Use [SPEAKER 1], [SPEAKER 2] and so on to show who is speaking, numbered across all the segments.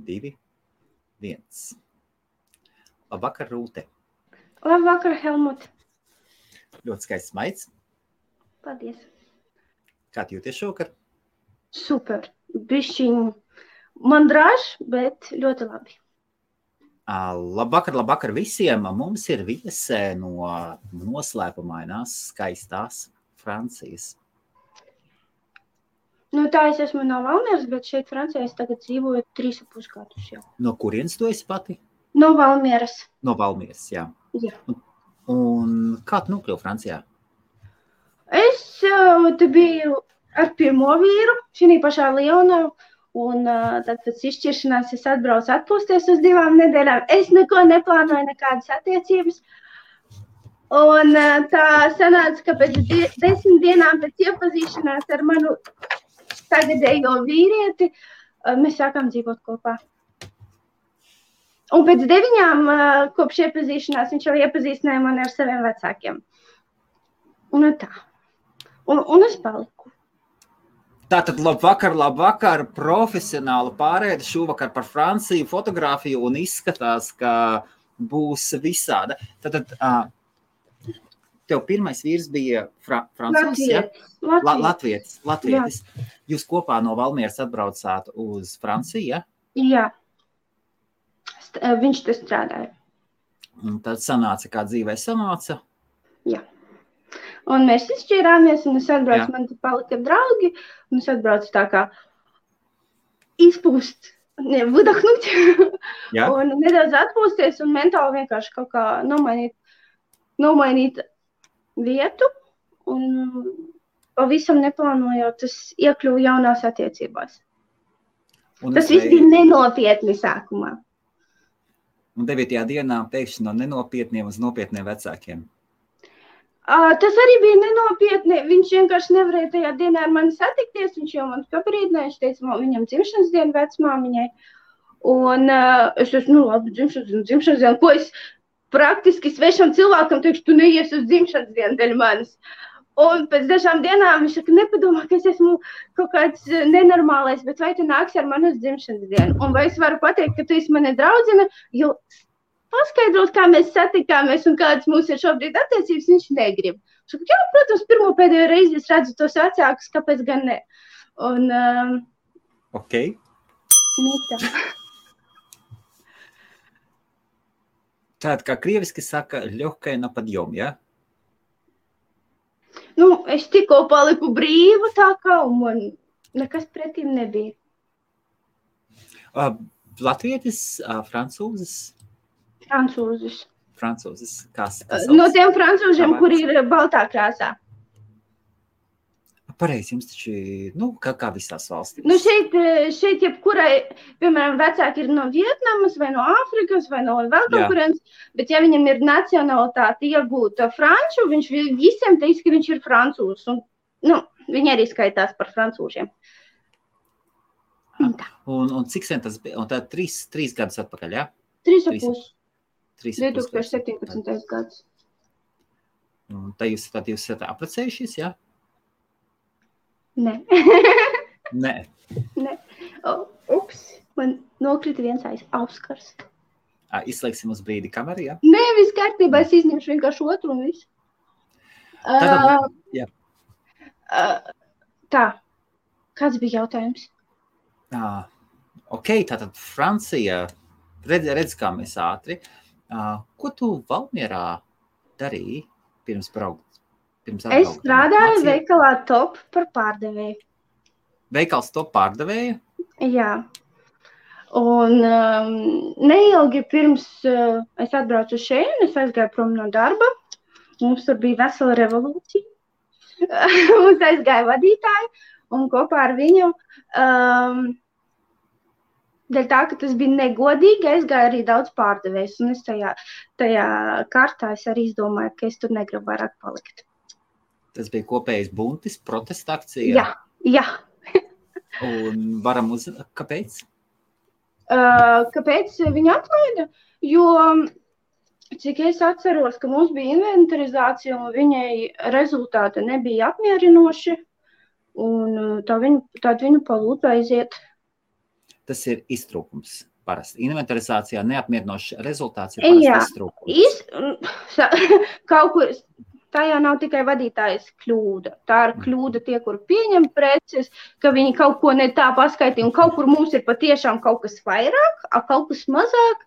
[SPEAKER 1] 2, 1. Labvakar, Rūte.
[SPEAKER 2] Labvakar, Helmut.
[SPEAKER 1] Ļoti skaists maids.
[SPEAKER 2] Paldies.
[SPEAKER 1] Kā tu jūties šovakar?
[SPEAKER 2] Super. Bišķiņ man drāž, bet ļoti labi.
[SPEAKER 1] Labvakar visiem. Mums ir viesē no noslēpumainās, skaistās Francijas.
[SPEAKER 2] Tā es esmu no Valmieras, bet šeit Francijā es tagad dzīvoju 3,5 gadus jau.
[SPEAKER 1] No kurienes tu esi pati?
[SPEAKER 2] No Valmieras.
[SPEAKER 1] No Valmieras, jā.
[SPEAKER 2] Jā.
[SPEAKER 1] Un kā tu nokļuvi Francijā?
[SPEAKER 2] Es te biju ar pirmo vīru, šī pašā Lionā, un tad pēc izšķiršanās es atbraucu atpūsties uz 2 nedēļām. Es neko neplānoju, nekādas attiecības. Un tā sanāca, ka pēc 10 dienām pēc iepazīšanās ar manu tagadējo vīrieti mēs sākām dzīvot kopā. Un pēc 9 kopš iepazīšanās viņš jau iepazīstināja mani ar saviem vecākiem. Un tā. Un es paliku.
[SPEAKER 1] Tātad labvakar, profesionāla pārēde šovakar par Franciju, fotografiju un izskatās, ka būs visāda. Tātad tev pirmais vīrs bija francūzs, ja? Latvietis. Jūs kopā no Valmieras atbraucāt uz Franciju, ja?
[SPEAKER 2] Jā. Viņš te strādāja.
[SPEAKER 1] Un tad sanāca, kā dzīvē sanāca?
[SPEAKER 2] Jā. Un mēs izšķirāmies, un es atbraucu, man te palika draugi, un es atbraucu tā kā izpūst, выдохнуть, un nedaudz atpūsties, un mentāli vienkārši kaut kā nomainīt vietu, un pavisam neplānojot, es iekļuvu jaunās attiecībās. Tas viss bija nenopietni sākumā.
[SPEAKER 1] Un 9. dienā pēkšņi no nenopietniem uz nopietniem vecākiem.
[SPEAKER 2] Tas arī bija nenopietni. Viņš vienkārši nevarēja tajā dienā ar mani satikties. Viņš jau man pabrīdināja, viņš teica, viņam dzimšanas diena vecmāmiņai. Un es esmu, labi, dzimšanas diena. Ko es praktiski svešam cilvēkam teikšu, tu neies uz dzimšanas dienu dēļ manis. Un pēc dažām dienām viņš saka, nepadomā, ka es esmu kaut kāds nenormālais, bet vai tu nāksi ar mani uz dzimšanas dienu? Un vai es varu pateikt, ka tu esi mani draudzene, jo paskaidrot, kā mēs satikāmies un kādas mums ir šobrīd attiecības, viņš negrib. Viņš saka, jā, protams, pirmo pēdējo reizi es redzu tos vecākus, kāpēc gan ne. Un,
[SPEAKER 1] ok.
[SPEAKER 2] Mītā.
[SPEAKER 1] Tātad, kā krieviski saka, ļohkai na padjom, ja?
[SPEAKER 2] Es tikko paliku brīva tā kā, un man nekas pretīm nebija.
[SPEAKER 1] Latvietis, francūzis? Francūzis. Kas
[SPEAKER 2] no tiem francūžiem, kuri ir baltā krāsā.
[SPEAKER 1] Pareizi, jums taču, kā visās valstīs.
[SPEAKER 2] Šeit jebkurai, piemēram, vecāki ir no Vietnamas, vai no Āfrikas, vai no vēl kaut kurienes, bet ja viņam ir nacionalitāte iegūta franču, viņš visiem teiks, ka viņš ir francūzs. Un, viņi arī skaitās par francūžiem.
[SPEAKER 1] Un cik sen tas bija? Un tā 3 gadus atpakaļ, jā?
[SPEAKER 2] 3,5. 2017. gads.
[SPEAKER 1] Un tā jūs esat apprecējušies, jā?
[SPEAKER 2] Nē.
[SPEAKER 1] Nē.
[SPEAKER 2] Ups, man nokrita viens auskars.
[SPEAKER 1] Izslēgsim uz brīdi kameru, jā?
[SPEAKER 2] Nē, viss kārtībā, es izņemšu vienkārši otru un visu.
[SPEAKER 1] Jā.
[SPEAKER 2] Tā, kāds bija jautājums?
[SPEAKER 1] Ok, tātad Francija, redz kā mēs ātri. Ko tu Valmierā darīji pirms braukt?
[SPEAKER 2] Es strādāju veikalā Top par pārdevēju.
[SPEAKER 1] Veikals Top pārdevēja?
[SPEAKER 2] Jā. Un neilgi pirms es atbraucu šeit, es aizgāju prom no darba. Mums tur bija vesela revolūcija. Mums aizgāja vadītāji un kopā ar viņu dēļ tā, ka tas bija negodīgi, aizgāja arī daudz pārdevējs. Un es tajā kārtā es arī izdomāju, ka es tur negribu vairāk palikt.
[SPEAKER 1] Tas bija kopējais buntis, protesta akcija?
[SPEAKER 2] Jā.
[SPEAKER 1] Un varam kāpēc?
[SPEAKER 2] Kāpēc viņu atlaida? Jo, cik es atceros, ka mums bija inventarizācija un viņai rezultāti nebija apmierinoši, un tad viņu palūdza aiziet.
[SPEAKER 1] tas ir iztrūkums. Parasti inventarizācijā neapmierinošs rezultāts ir parasti iztrūkums.
[SPEAKER 2] Kaut kur tā jau nav tikai vadītājas kļūda. Tā ir kļūda tie, kur pieņem preces, ka viņi kaut ko ne tā paskaitīja, un kaut kur mums ir patiešām kaut kas vairāk, kaut kas mazāk,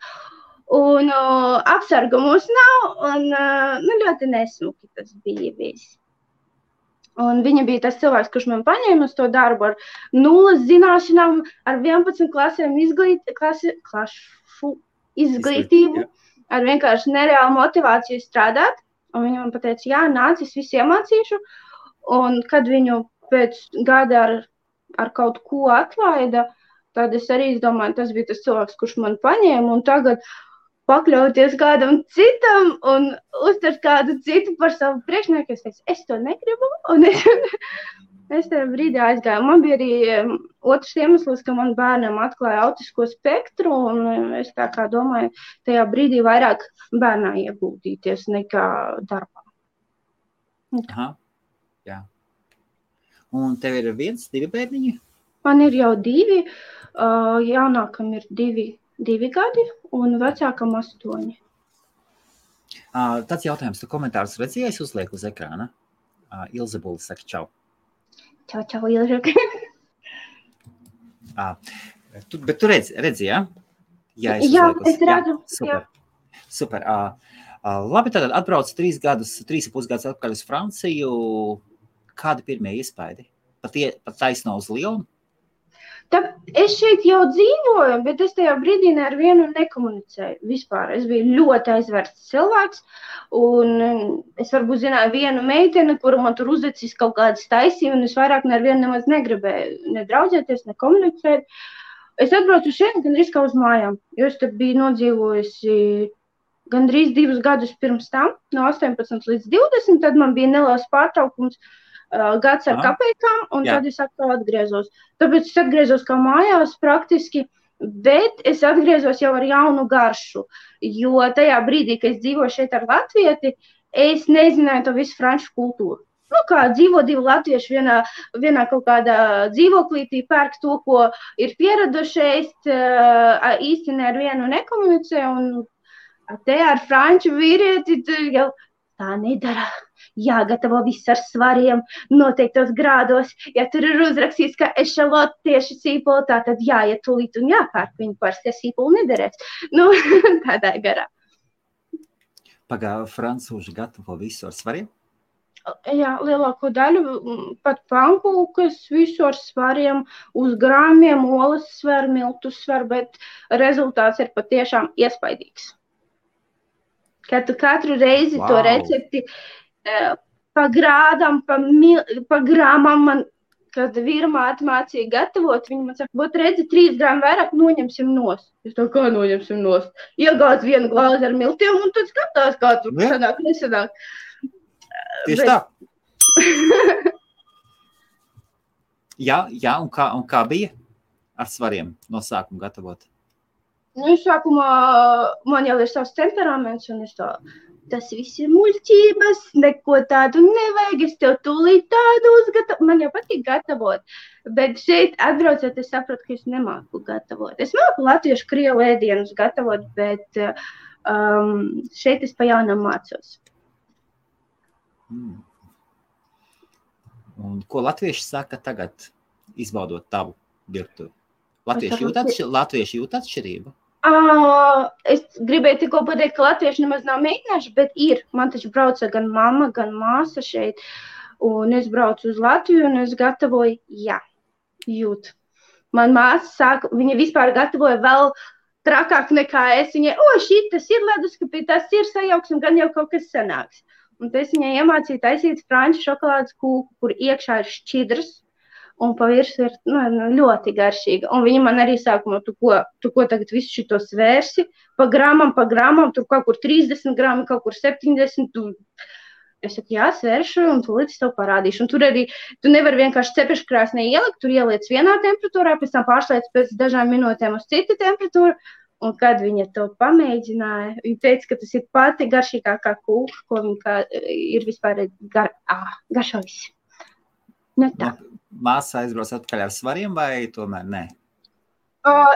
[SPEAKER 2] un apsarga mums nav, un ļoti nesmuki tas bija viss. Un viņa bija tas cilvēks, kurš man paņēma uz to darbu ar 0 zināšanām, ar 11 klasēm izglītību, ar vienkārši nereālu motivāciju strādāt. Un viņa man pateica, jā, nāc, es visu iemācīšu. Un kad viņu pēc gada ar kaut ko atlaida, tad es arī domāju, tas bija tas cilvēks, kurš man paņēma. Un tagad pakļauties kādam citam un uztvert kādu citu par savu priekšnieku. Es teicu, es to negribu, un es tajā brīdī aizgāju. Man bija arī otrs iemesls, ka man bērnam atklāja autisko spektru, un es tā kā domāju, tajā brīdī vairāk bērnā ieguldīties nekā darbā.
[SPEAKER 1] Aha, jā. Un tev ir 1, 2 bērniņi?
[SPEAKER 2] Man ir jau 2, jaunākam ir 2 gadi, un vecākam 8.
[SPEAKER 1] Tāds jautājums, tu komentārus redzēji, es uzlieku uz ekrāna. Ilze Buli saka čau.
[SPEAKER 2] Čau, Ilze.
[SPEAKER 1] Bet tu redzi, jā?
[SPEAKER 2] Jā, es redzu.
[SPEAKER 1] Super. Labi, tad atbrauc 3,5 gadus atpakaļ uz Franciju. Kādi pirmie iespaidi? Pat taisno uz Lionu?
[SPEAKER 2] Es šeit jau dzīvoju, bet es tajā brīdī ar vienu nekomunicēju vispār. Es biju ļoti aizvērts cilvēks, un es varbūt zināju vienu meiteni, kuru man tur uzdecis kaut kādas taisību, un es vairāk ar vienu nemaz negribēju ne draudzēties, ne komunicēt. Es atbraucu šeit gandrīz kā uz mājām, jo es te biju nodzīvojusi gandrīz 2 gadus pirms tam, no 18 līdz 20, tad man bija neliels pārtraukums, gads ar kapeikām, un tad es atkal atgriezos. Tāpēc es atgriezos kā mājās praktiski, bet es atgriezos jau ar jaunu garšu, jo tajā brīdī, kad es dzīvoju šeit ar latvieti, es nezināju to visu franču kultūru. Kā dzīvo 2 latvieši vienā kaut kādā dzīvoklītī, pērk to, ko ir pieradušies, īsti ne ar vienu nekomunicē, un te ar franču vīrieti jau tā nedara. Jāgatavo viss ar svariem, noteiktos grādos. Ja tur ir uzrakstīts, ka ešalot tieši sīpoli, tad jāiet tūlīt un jāpērk viņu parasti, ja sīpoli nederēs. Tādā garā.
[SPEAKER 1] Francūži gatavo visu ar svariem?
[SPEAKER 2] Jā, lielāko daļu, pat pankūkas, visu ar svariem, uz grāmiem, olas svar, miltus svar, bet rezultāts ir patiešām iespaidīgs. Kad tu katru reizi to recepti pa grādam, pa grāmam man, kad vīrmāte mācīja gatavot, viņi man saka, būt redzi 3 grāmu vairāk, noņemsim nost. Es tā kā noņemsim nost? Iegāds 1 glāzi ar miltiem un tad skatās, kā tur sanāk, nesanāk.
[SPEAKER 1] Tieši tā. Jā, un kā bija ar svariem no sākuma gatavot?
[SPEAKER 2] Sākumā man jau ir savs temperaments, un es tas viss ir muļķības, neko tādu nevajag, es tev tūlīt tādu uzgatavu. Man jau patīk gatavot, bet šeit atbraucot, es saprotu, ka es nemāku gatavot. Es māku latviešu krievu ēdienus gatavot, bet šeit es pa jaunam mācos.
[SPEAKER 1] Un ko latvieši saka tagad, izbaudot tavu virtuvi? Latvieši jūt atšķirību?
[SPEAKER 2] Es gribēju tikko pateikt, ka latvieši nemaz nav mēģinājuši, bet ir. Man taču brauca gan mamma, gan māsa šeit, un es braucu uz Latviju, un es gatavoju, jūt. Man māsa sāka, viņa vispār gatavoja vēl trakāk nekā es. Viņai, šitas ir leduskapī, tas ir sajauks, un gan jau kaut kas sanāks. Un es viņai iemācīju taisīt franču šokolādes kūku, kur iekšā ir šķidrs, un pa virsu ir ļoti garšīga. Un viņa man arī sākumā, tu ko tagad visu šito svērsi, pa grāmam, tur kaut kur 30 grāmi, kaut kur 70. Es saku, jā, svēršu, un tu līdz tev parādīšu. Un tur arī, tu nevari vienkārši cepeškrāsnī ielikt, tur ieliec vienā temperatūrā, pēc tam pārslēdz pēc dažām minūtēm uz citu temperatūru. Un kad viņa to pamēģināja, viņa teica, ka tas ir pati garšīgākā kūka, ko viņa ir vispār garšojis. Tā.
[SPEAKER 1] Māsa aizbrauc atpakaļ ar svariem vai tomēr nē?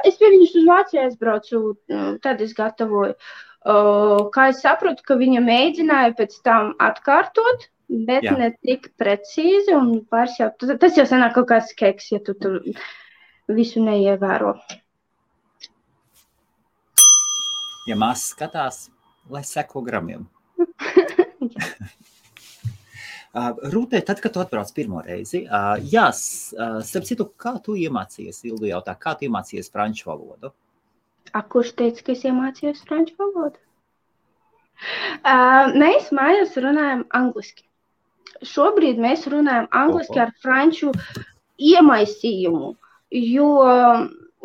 [SPEAKER 2] Es pie viņus uz Vāciju aizbraucu, tad es gatavoju. Kā es saprotu, ka viņa mēģināja pēc tam atkārtot, bet ne tik precīzi, un pāris jau, tas jau sanāk kaut kāds keks, ja tu tur visu neievēro.
[SPEAKER 1] Ja māsas skatās, lai seko gramiem. Rūtē, tad, kad tu atbrauc pirmo reizi, starp citu, kā tu iemācījies, Ildu jautā, kā tu iemācījies franču valodu?
[SPEAKER 2] Kurš teica, ka es iemācījos franču valodu? Mēs mājās runājam angliski. Šobrīd mēs runājam angliski ar franču iemaisījumu, jo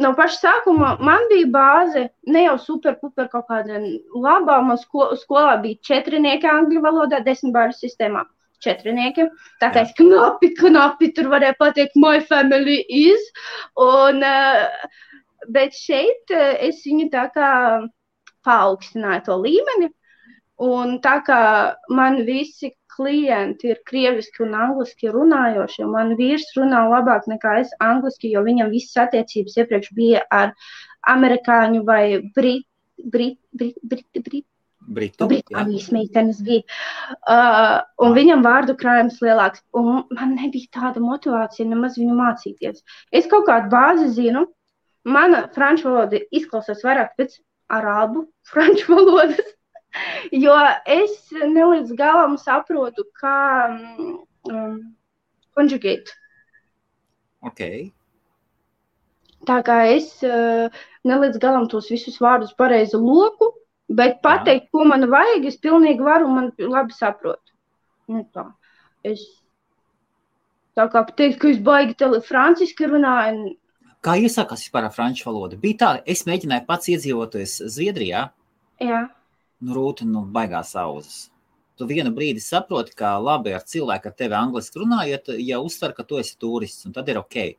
[SPEAKER 2] no paša sākuma man bija bāze, ne jau super kaut kāda labā, man skolā bija 4 angļu valodā, 10 bāļu sistēmā. 4. Tā kā es knapi tur varēju pateikt, my family is, bet šeit es viņu tā kā paaugstināju to līmeni, un tā kā man visi klienti ir krieviski un angliski runājoši, un man vīrs runā labāk nekā es angliski, jo viņam visas attiecības iepriekš bija ar amerikāņu vai Britānijas meitenes bija. Un viņam vārdu krājums lielāks. Un man nebija tāda motivācija nemaz viņu mācīties. Es kaut kādu bāzi zinu. Mana franču valoda izklausās vairāk pēc arābu franču valodas, jo es nelīdz galam saprotu, kā conjugate.
[SPEAKER 1] Okay.
[SPEAKER 2] Tā kā es nelīdz galam tos visus vārdus pareizi loku, bet pateikt, ko man vajag, es pilnīgi varu un man labi saprotu. Nu tā. Es tā kā pateikt, ka es baigi franciski runāju.
[SPEAKER 1] Kā iesākās vispār ar franču valodu? Bija tā, es mēģināju pats iedzīvoties Zviedrijā.
[SPEAKER 2] Jā.
[SPEAKER 1] Rūta, baigās auzas. Tu vienu brīdi saproti, ka labi ar cilvēku ar tevi angliski runājot, ja uztver, ka tu esi turists, un tad ir okei.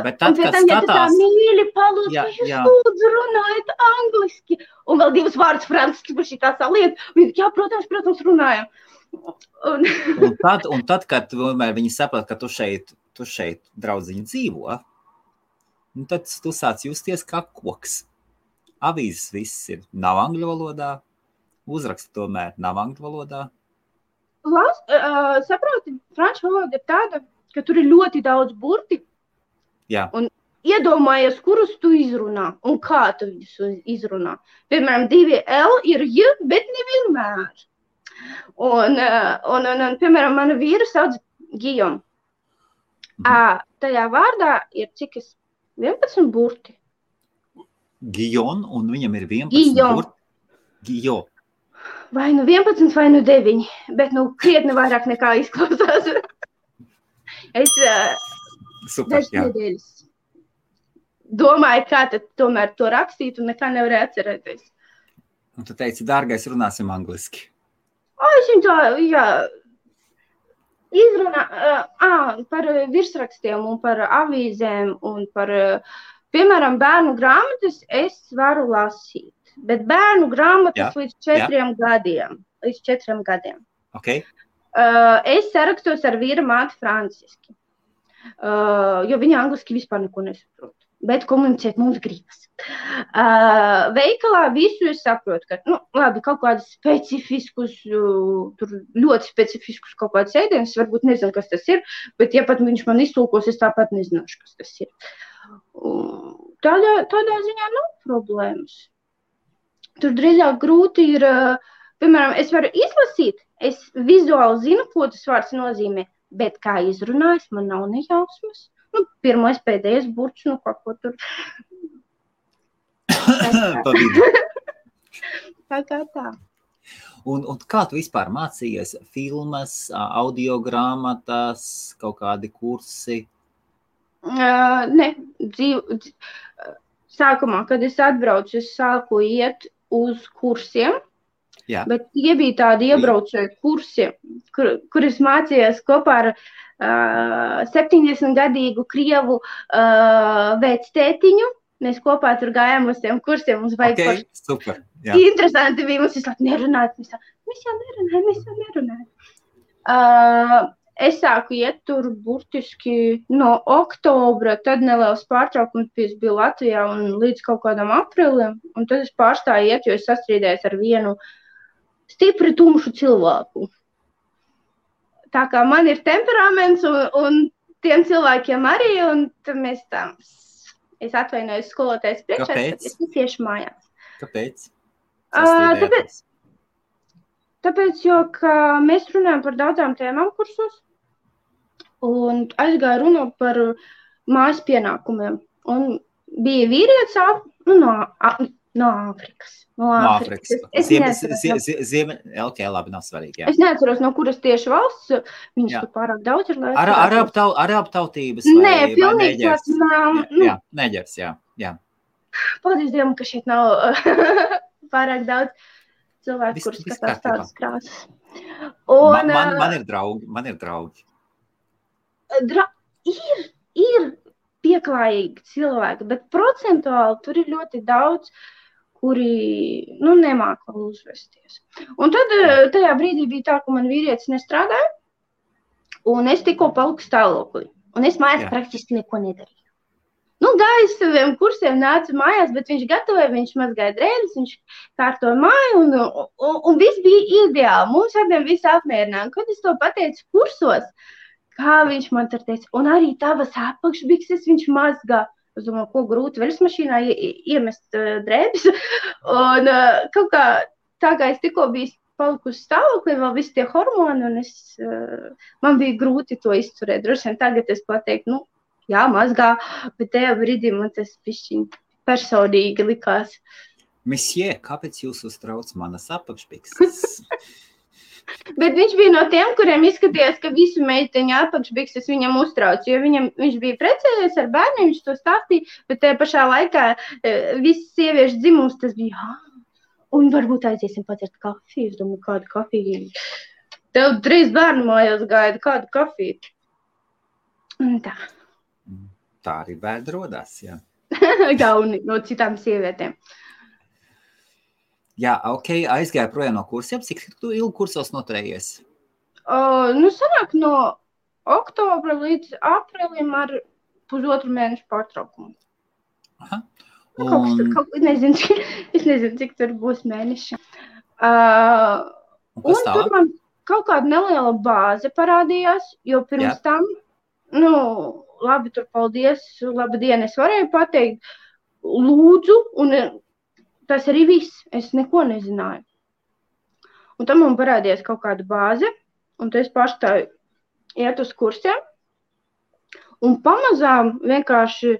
[SPEAKER 1] Bet tad, kad skatās...
[SPEAKER 2] Ja tu tā mīļi palūdz, ka jūs lūdzu runājat angliski, un vēl 2 vārdus franciski par šī tā saliet, un jā, protams, runājam.
[SPEAKER 1] Un tad, kad viņi saprot, ka tu šeit draudziņi dzīvo, tad tu sāc justies kā koks. Avīzes viss nav angļu valodā, uzraksti tomēr nav angļu valodā.
[SPEAKER 2] Saproti, franču valoda ir tāda, ka tur ir ļoti daudz burti.
[SPEAKER 1] Jā.
[SPEAKER 2] Un iedomājies, kurus tu izrunā un kā tu viņus izrunā. Piemēram, 2 L ir J, bet nevienmēr. Un piemēram, mana vīra sauc Gijom. Tajā vārdā ir cik 11 burti.
[SPEAKER 1] Gijon, un viņam ir 11 burti. Gijo.
[SPEAKER 2] Vai 11, vai 9, bet krietni vairāk nekā izklausās.
[SPEAKER 1] Super, jā.
[SPEAKER 2] Nedēļas. Domāju, kā tad tomēr to rakstīt un nekā nevarēju atcerēties.
[SPEAKER 1] Un tu teici, dārgais, runāsim angliski.
[SPEAKER 2] Es viņu tā, izrunā par virsrakstiem un par avīzēm un par, piemēram, bērnu grāmatas es varu lasīt, bet bērnu grāmatas līdz 4 gadiem. Līdz 4 gadiem.
[SPEAKER 1] Okay.
[SPEAKER 2] Es sarakstos ar vīra māti franciski. Jo viņa angliski vispār neko nesaprot, bet komunicēt mums gribas. Veikalā visu es saprotu, ka, labi, kaut kādus specifiskus, tur ļoti specifiskus kaut kādus ēdienus, varbūt nezinu, kas tas ir, bet ja pat viņš man iztulkos, es tāpat nezināšu, kas tas ir. Tādā ziņā nav problēmas. Tur drīzāk grūti ir, piemēram, es varu izlasīt, es vizuāli zinu, ko tas vārds nozīmē, bet kā izrunājis, man nav nejausmas. Pirmais, pēdējais burts, kaut ko tur. Tā kā tā.
[SPEAKER 1] Un kā tu vispār mācījies? Filmas, audio grāmatas, kaut kādi kursi?
[SPEAKER 2] Ne, sākumā, kad es atbraucu, es sāku iet uz kursiem.
[SPEAKER 1] Jā.
[SPEAKER 2] Bet tie bija tādi iebraucēji kursi, kur es mācījos kopā ar 70-gadīgu krievu vectētiņu. Mēs kopā tur gājām uz tiem kursiem. Mums vajag
[SPEAKER 1] super. Jā.
[SPEAKER 2] Interesanti bija. Mums vislāk nerunāt. Mēs jau nerunājam. es sāku iet tur burtiski no oktobra, tad neliels pārtraukums bija Latvijā un līdz kaut kādam aprīlim, un tad es pārstāju iet, jo es sastrīdējos ar vienu stipri tumšu cilvēku. Tā kā man ir temperaments un tiem cilvēkiem arī, un tad mēs tā, es atvainojos skolotājas priekšā, tad es tieši mājās.
[SPEAKER 1] Kāpēc?
[SPEAKER 2] Tāpēc, jo mēs runājam par daudzām tēmām kursos, un aizgāju runāt par mājas pienākumiem. Un bija vīrietis no Āfrikas.
[SPEAKER 1] No Āfrikas. Ok, labi, nav svarīgi. Jā.
[SPEAKER 2] Es neatceros, no kuras tieši valsts. Viņš tur pārāk daudz ir.
[SPEAKER 1] Arābu tautības?
[SPEAKER 2] Nē, pilnīgi tāds nav.
[SPEAKER 1] Jā, neģers, jā.
[SPEAKER 2] Paldies Dievam, ka šeit nav pārāk daudz cilvēku, kurus skatās tādas krāsas.
[SPEAKER 1] Man ir draugi.
[SPEAKER 2] Ir pieklājīgi cilvēki, bet procentuāli tur ir ļoti daudz, kuri, nemāk vēl uzvesties. Un tad tajā brīdī bija tā, ka man vīrietis nestrādāja, un es tikko paliku stāvoklī. Un es mājās praktiski neko nedarīju. Gāju saviem kursiem, nācu mājās, bet viņš gatavoja, viņš mazgāja drēbes, viņš kārtoja māju, un viss bija ideāli. Mums abiem viss apmierināja. Kad es to pateicu kursos, kā viņš man tur teica, un arī tavas apakšbikses viņš mazgā. Es domāju, ko grūti veļas mašīnā iemest drēbes. Un kaut kā tā kā es tikko biju palikusi stāvoklī, vēl visi tie hormoni, un man bija grūti to izturēt. Droši vien tagad es pateiktu, jā, mazgā, bet tajā brīdī man tas pišķiņ personīgi likās.
[SPEAKER 1] Mesjē, kāpēc jūs uztrauc manas apakšbikses?
[SPEAKER 2] Bet viņš bija no tiem, kuriem izskatījās, ka visu meiteņu apakšbikses viņam uztrauc, jo viņš bija precējies ar bērniem, viņš to stāstīja, bet tajā pašā laikā visas sieviešu dzimums tas bija, un varbūt aiziesim padzert kafiju, es domāju, kādu kafiju. Tev 3 bērnu mājās gaida, kādu kafiju. Un tā.
[SPEAKER 1] Tā arī bērni rodās, jā.
[SPEAKER 2] Gauni no citām sievietēm.
[SPEAKER 1] Jā, ok, aizgāja projām no kursiem. Cik tu ilgi kursos noturējies?
[SPEAKER 2] Sanāk no oktobra līdz aprīlim ar 1,5 mēnešu pārtraukumu.
[SPEAKER 1] Aha.
[SPEAKER 2] Es nezinu, cik tur būs mēneši. Un tur man kaut kāda neliela bāze parādījās, jo pirms tam, labi, tur paldies, labdien, es varēju pateikt, lūdzu, un tas arī viss, es neko nezināju. Un tam man parādījās kaut kāda bāze, un tad es pārstāju iet uz kursiem, un pamazām vienkārši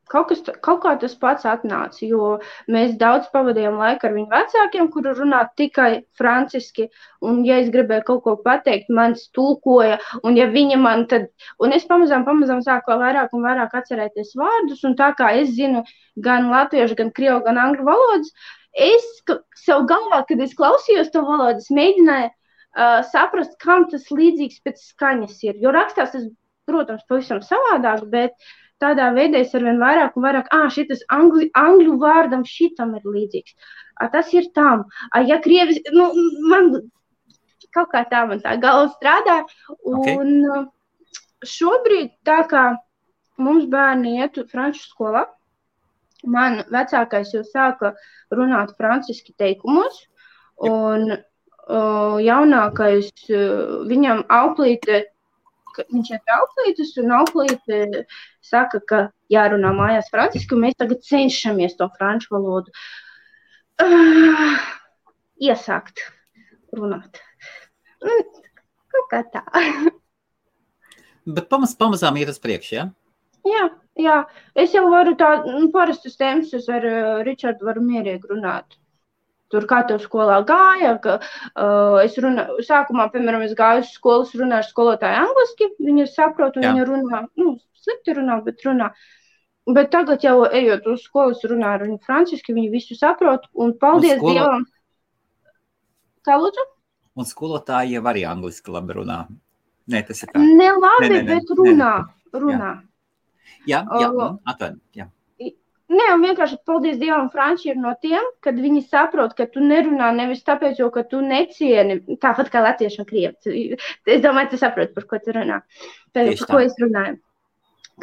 [SPEAKER 2] kaut kā tas pats atnāca, jo mēs daudz pavadījām laiku ar viņu vecākiem, kuri runā tikai franciski, un ja es gribēju kaut ko pateikt, mans tulkoja, un ja viņa man tad, un es pamazām sāku vairāk un vairāk atcerēties vārdus, un tā kā es zinu gan latviešu, gan krievu, gan angļu valodas, es sev galvā, kad es klausījos to valodu, es mēģināju saprast, kam tas līdzīgs pēc skaņas ir, jo rakstās tas, protams, pavisam savādāk, bet tādā veidā es arvien vairāk un vairāk, šitas angļu vārdam šitam ir līdzīgs. Tas ir tam. Ja krievis, man kaut kā tā man tā galva strādā. Un šobrīd tā kā mums bērni iet franču skolā, man vecākais jau sāka runāt franciski teikumos, un jaunākais viņam auklīte, viņš iet auklītes, un auklīte saka, ka jārunā mājās franciski, un mēs tagad cenšamies to franču valodu iesākt runāt. Kaut kā tā.
[SPEAKER 1] Bet pamazām iet uz priekšu, ja?
[SPEAKER 2] Jā. Es jau varu parastus tēmas, es ar Ričardu varu mierīgi runāt. Tur kā tev skolā gāja, ka sākumā, piemēram, es gāju uz skolas, runāju ar skolotāju angliski, viņa saprot, un viņa runā, slikti runā, bet runā. Bet tagad jau ejot uz skolas, runāju ar viņu franciski, viņi visu saprot, un paldies Dievam. Kā lūdzu?
[SPEAKER 1] Un skolotāji jau arī angliski labi runā. Nē, tas ir tā.
[SPEAKER 2] Ne labi, bet runā.
[SPEAKER 1] Jā, atvaino, jā.
[SPEAKER 2] Ne, un vienkārši, paldies Dievam, franči ir no tiem, kad viņi saprot, ka tu nerunā nevis tāpēc, jo, ka tu necieni, tāpat kā latvieši un krievi. Es domāju, tu saproti, par ko tu runā. Par ko es runāju.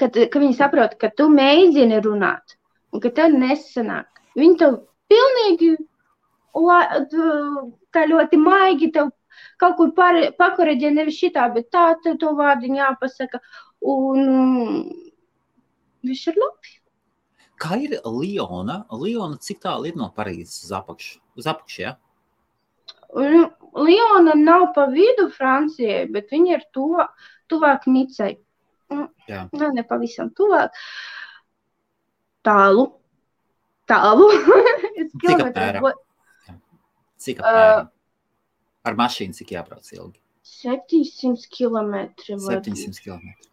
[SPEAKER 2] Ka viņi saprot, ka tu mēģini runāt un ka tev nesanāk. Viņi tev pilnīgi tā ļoti maigi tev kaut kur pakoreģē nevis šitā, bet tā tev to vārdiņu jāpasaka. Un viss ir labi.
[SPEAKER 1] Kā ir Liona? Liona cik tālu ir no Parīzes uz apakšu, ja?
[SPEAKER 2] Liona nav pa vidu Francijai, bet viņa ir tuvāk Nicai.
[SPEAKER 1] Jā.
[SPEAKER 2] Ne pavisam tuvāk. Tālu.
[SPEAKER 1] Cik apmēram? Cik apmēram? Ar mašīnu cik jābrauc ilgi?
[SPEAKER 2] 700 kilometri.
[SPEAKER 1] 700 kilometri.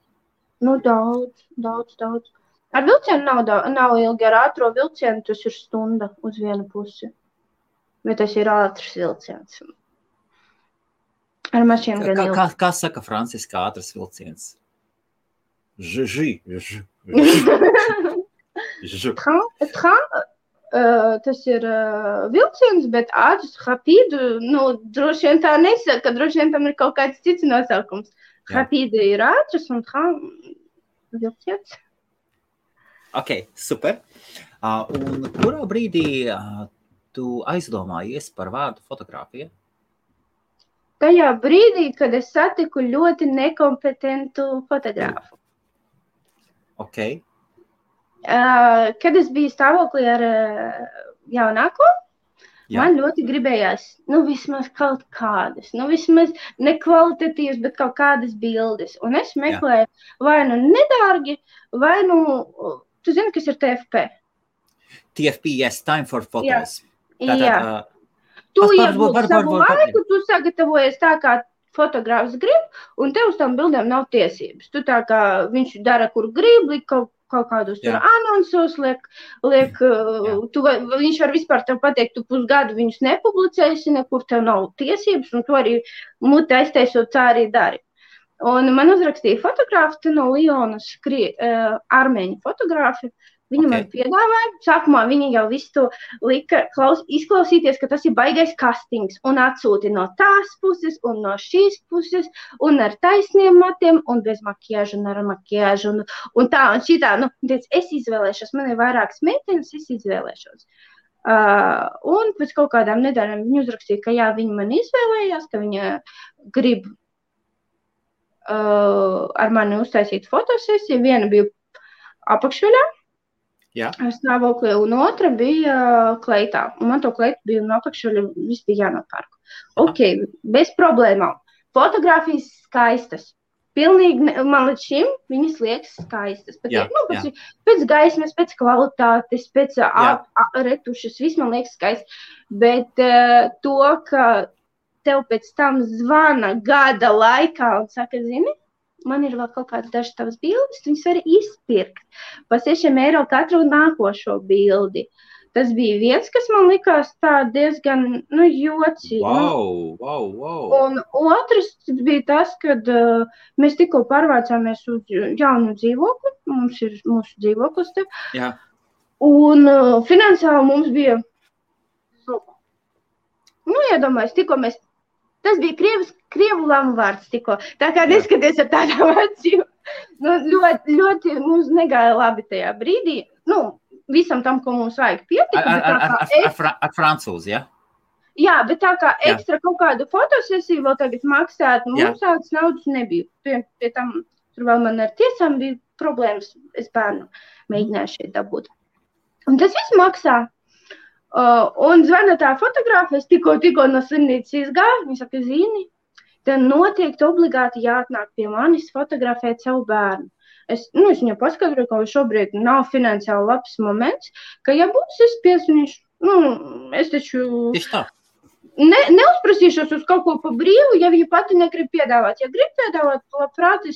[SPEAKER 2] Nu, daudz. Ar vilcienu nav ilgi, ar ātro vilcienu tas ir stunda uz vienu pusi. Bet tas ir ātrs vilciens. Ar mašīnu gan ilgi.
[SPEAKER 1] Kā saka franciski ātrs vilciens?
[SPEAKER 2] Tas ir vilciens, bet ātrs, rapide, droši vien tā nesaka, droši vien tam ir kaut kāds cits nosaukums. Rapide ir ātrs un vilciens.
[SPEAKER 1] Ok, super. Un kurā brīdī tu aizdomājies par vārdu fotogrāfija?
[SPEAKER 2] Tajā brīdī, kad es satiku ļoti nekompetentu fotogrāfu.
[SPEAKER 1] Ok.
[SPEAKER 2] Kad es biju stāvoklī ar jaunāko, man ļoti gribējās, vismaz kaut kādas, vismaz nekvalitatīvas, bet kaut kādas bildes. Un es meklēju vai nedārgi, vai tu zini, kas ir TFP?
[SPEAKER 1] TFP, yes, time for photos.
[SPEAKER 2] Jā. Tu iegūti savu laiku, tu sagatavojies tā, kā fotogrāfs grib, un tev uz tām bildēm nav tiesības. Tu tā kā viņš dara, kur grib, kaut kādus tur anonsos, viņš var vispār tev pateikt, tu pusgadu viņus nepublicēsi, nekur tev nav tiesības, un tu arī muti aiztaisot tā arī dari. Un man uzrakstīja fotogrāfi no Lionas, armēņu fotogrāfi. Viņa man piedāvāja, sākumā viņa jau visu to lika izklausīties, ka tas ir baigais kastings, un atsūti no tās puses, un no šīs puses, un ar taisniem matiem, un bez makiāžu, un ar makiāžu, un tā, un šitā. Es izvēlēšos, man ir vairākas meitenes, es izvēlēšos. Un pēc kaut kādām nedēļām viņa uzrakstīja, ka jā, viņa man izvēlējās, ka viņa grib ar mani uztaisīt fotosesiju. Viena bija apakšveļā, stāvoklī, un otra bija kleitā. Un man to kleitu bija no apakšveļa, viss bija jānopērk. Ok, bez problēmām. Fotogrāfijas skaistas. Pilnīgi, man līdz šim viņas liekas skaistas. Pēc gaismas, pēc kvalitātes, pēc retušas, viss man liekas skaists. Bet to, ka tev pēc tam zvana gada laikā un saka, zini, man ir vēl kaut kādas dažas tavas bildes, viņas var izpirkt par 6 eiro katru nākošo bildi. Tas bija viens, kas man likās tā diezgan, jocīgi.
[SPEAKER 1] Wow.
[SPEAKER 2] Un otrs bija tas, kad mēs tikko pārvācāmies uz jaunu dzīvokli, mums ir mūsu dzīvoklis te.
[SPEAKER 1] Jā.
[SPEAKER 2] Un finansiāli mums bija, iedomājies, tikko mēs. Tas bija krievu lamu vārds tikko. Tā kā neskaties ar tādām acīm. Ļoti mums negāja labi tajā brīdī. Visam tam, ko mums vajag pietika.
[SPEAKER 1] Ar francūzi, ja?
[SPEAKER 2] Jā, bet tā kā ekstra kaut kādu fotosesiju vēl tagad maksāt, mums tādas naudas nebija. Pie tam, tur vēl man ar tiesām bija problēmas. Es bērnu mēģināju šeit dabūt. Un tas viss maksā. Un zvana tā fotogrāfa, es tikko no slimnīcas izgāju, viņa saka, zini, tev noteikti obligāti jāatnāk pie manis fotografēt savu bērnu. Es viņam paskaidroju, ka šobrīd nav finansiāli labs moments, ka ja būs, es piesnišu, es taču neuzprasīšos uz kaut ko pa brīvu, ja viņa pati negrib piedāvāt. Ja grib piedāvāt, labprāt,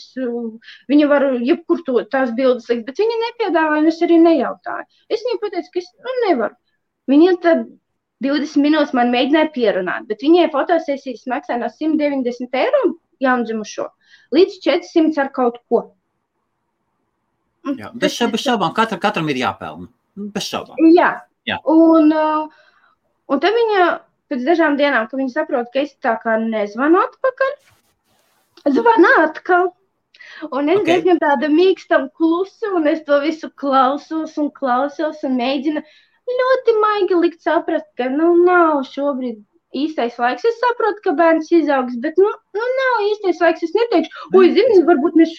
[SPEAKER 2] viņa var jebkur tās bildes likt, bet viņa nepiedāvāja, un es arī nejautāju. Es viņai pateicu, ka es nevaru. Viņa tad 20 minūtes man mēģināja pierunāt, bet viņai fotosesijas maksā no 190 eiro jaundzimušo līdz 400 ar kaut ko.
[SPEAKER 1] Jā, bez šaubām katram ir jāpelna. Bez šaubām.
[SPEAKER 2] Jā.
[SPEAKER 1] Jā.
[SPEAKER 2] Un tad viņa pēc dažām dienām, kad viņa saprot, ka es tā kā nezvanu atpakaļ, zvana atkal. Un es diezgan tāda mīkstam klusu, un es to visu klausos un mēģinu ļoti maigi likt saprast, ka, nav šobrīd īstais laiks. Es saprotu, ka bērns izaugs, bet, nav īstais laiks. Es neteikšu, zini, varbūt mēs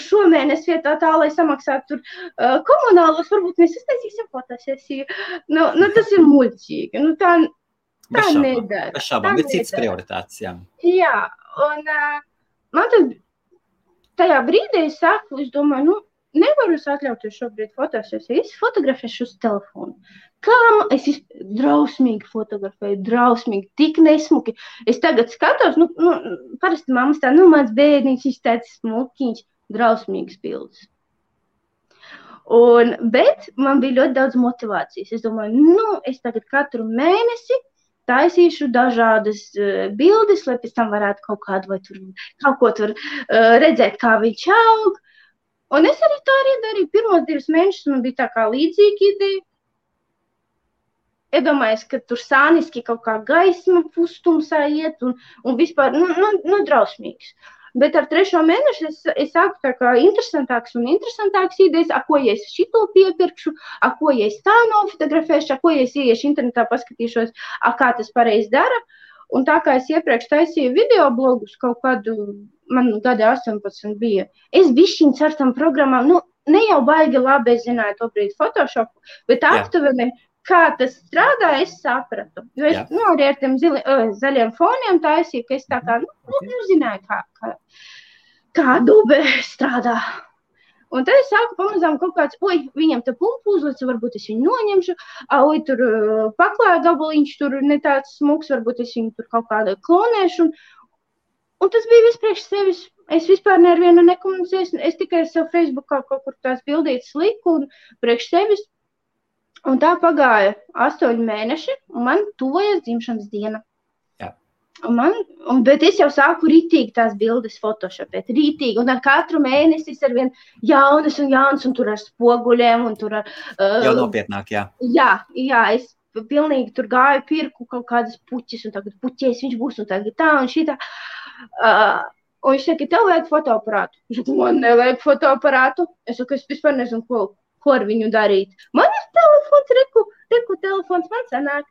[SPEAKER 2] šomēnes vietā tā, lai samaksātu tur komunālos, varbūt mēs iztaisīsim fotosesiju. Tas ir muļķīgi. Tā nedara.
[SPEAKER 1] Bez šaubām, ir cits prioritātes, jā. Jā,
[SPEAKER 2] un man tad tajā brīdī es domāju, nevaru es atļauties šobrīd fotosesiju. Es fotografēšu uz telefonu. Es drausmīgi fotografēju, drausmīgi, tik nesmuki. Es tagad skatos, parasti mammas tā, mans bērniņš, viņš tāds smukiņš, drausmīgs bildes. Bet man bija ļoti daudz motivācijas. Es domāju, es tagad katru mēnesi taisīšu dažādas bildes, lai pēc tam varētu kaut kādu vai tur kaut ko tur redzēt, kā viņš aug. Un es arī tā darīju. Pirmos 2 mēnešus man bija tā kā līdzīga ideja. Iedomājies, ka tur sāniski kaut kā gaisma pustumsā iet un vispār, drausmīgs. Bet ar 3. mēnešu es sāku tā kā interesantāks idejas, ko ja es šito piepirkšu, ko ja es tā nofotografēšu, ko ja es ieiešu internetā, paskatīšos, kā tas pareizi dara. Un tā kā es iepriekš taisīju video blogus, kaut kādu, man gadi 18 bija, es bišķiņ ar tam programmām, ne jau baigi labi, es zināju to brīdi Photoshopu, bet aptuveni, kā tas strādā, es sapratu. Jo es arī ar tiem zaļiem foniem taisīju, ka es tā kā, nezināju, kā Adobe strādā. Un tad es sāku pamazām kaut kāds, viņam te pumpu uzlicu, varbūt es viņu noņemšu, tur paklāja gabaliņš, tur ne tāds smuks, varbūt es viņu tur kaut kādā klonēšu. Un tas bija vispriekš sevis. Es vispār nevienu nekomunicēju, es tikai savu Facebookā kaut kur tās bildītas liku un priekš sevis. Un tā pagāja 8 mēneši, un man tuvojas dzimšanas diena.
[SPEAKER 1] Jā.
[SPEAKER 2] Bet es jau sāku rītīgi tās bildes photoshopēt, rītīgi, un ar katru mēnesi es arvien jaunas, un tur ar spoguļiem, un tur ar...
[SPEAKER 1] Jau nopietnāk, jā.
[SPEAKER 2] Jā, es pilnīgi tur gāju, pirku kaut kādas puķis, un tagad puķies viņš būs, un tagad tā, un šitā. Un viņš saka, tev vajag fotoaparātu. Es saku, man nevajag fotoaparātu. Es saku, es vispār nezinu, ko ar viņu darīt. Man ir telefons, reku telefons, man sanāk.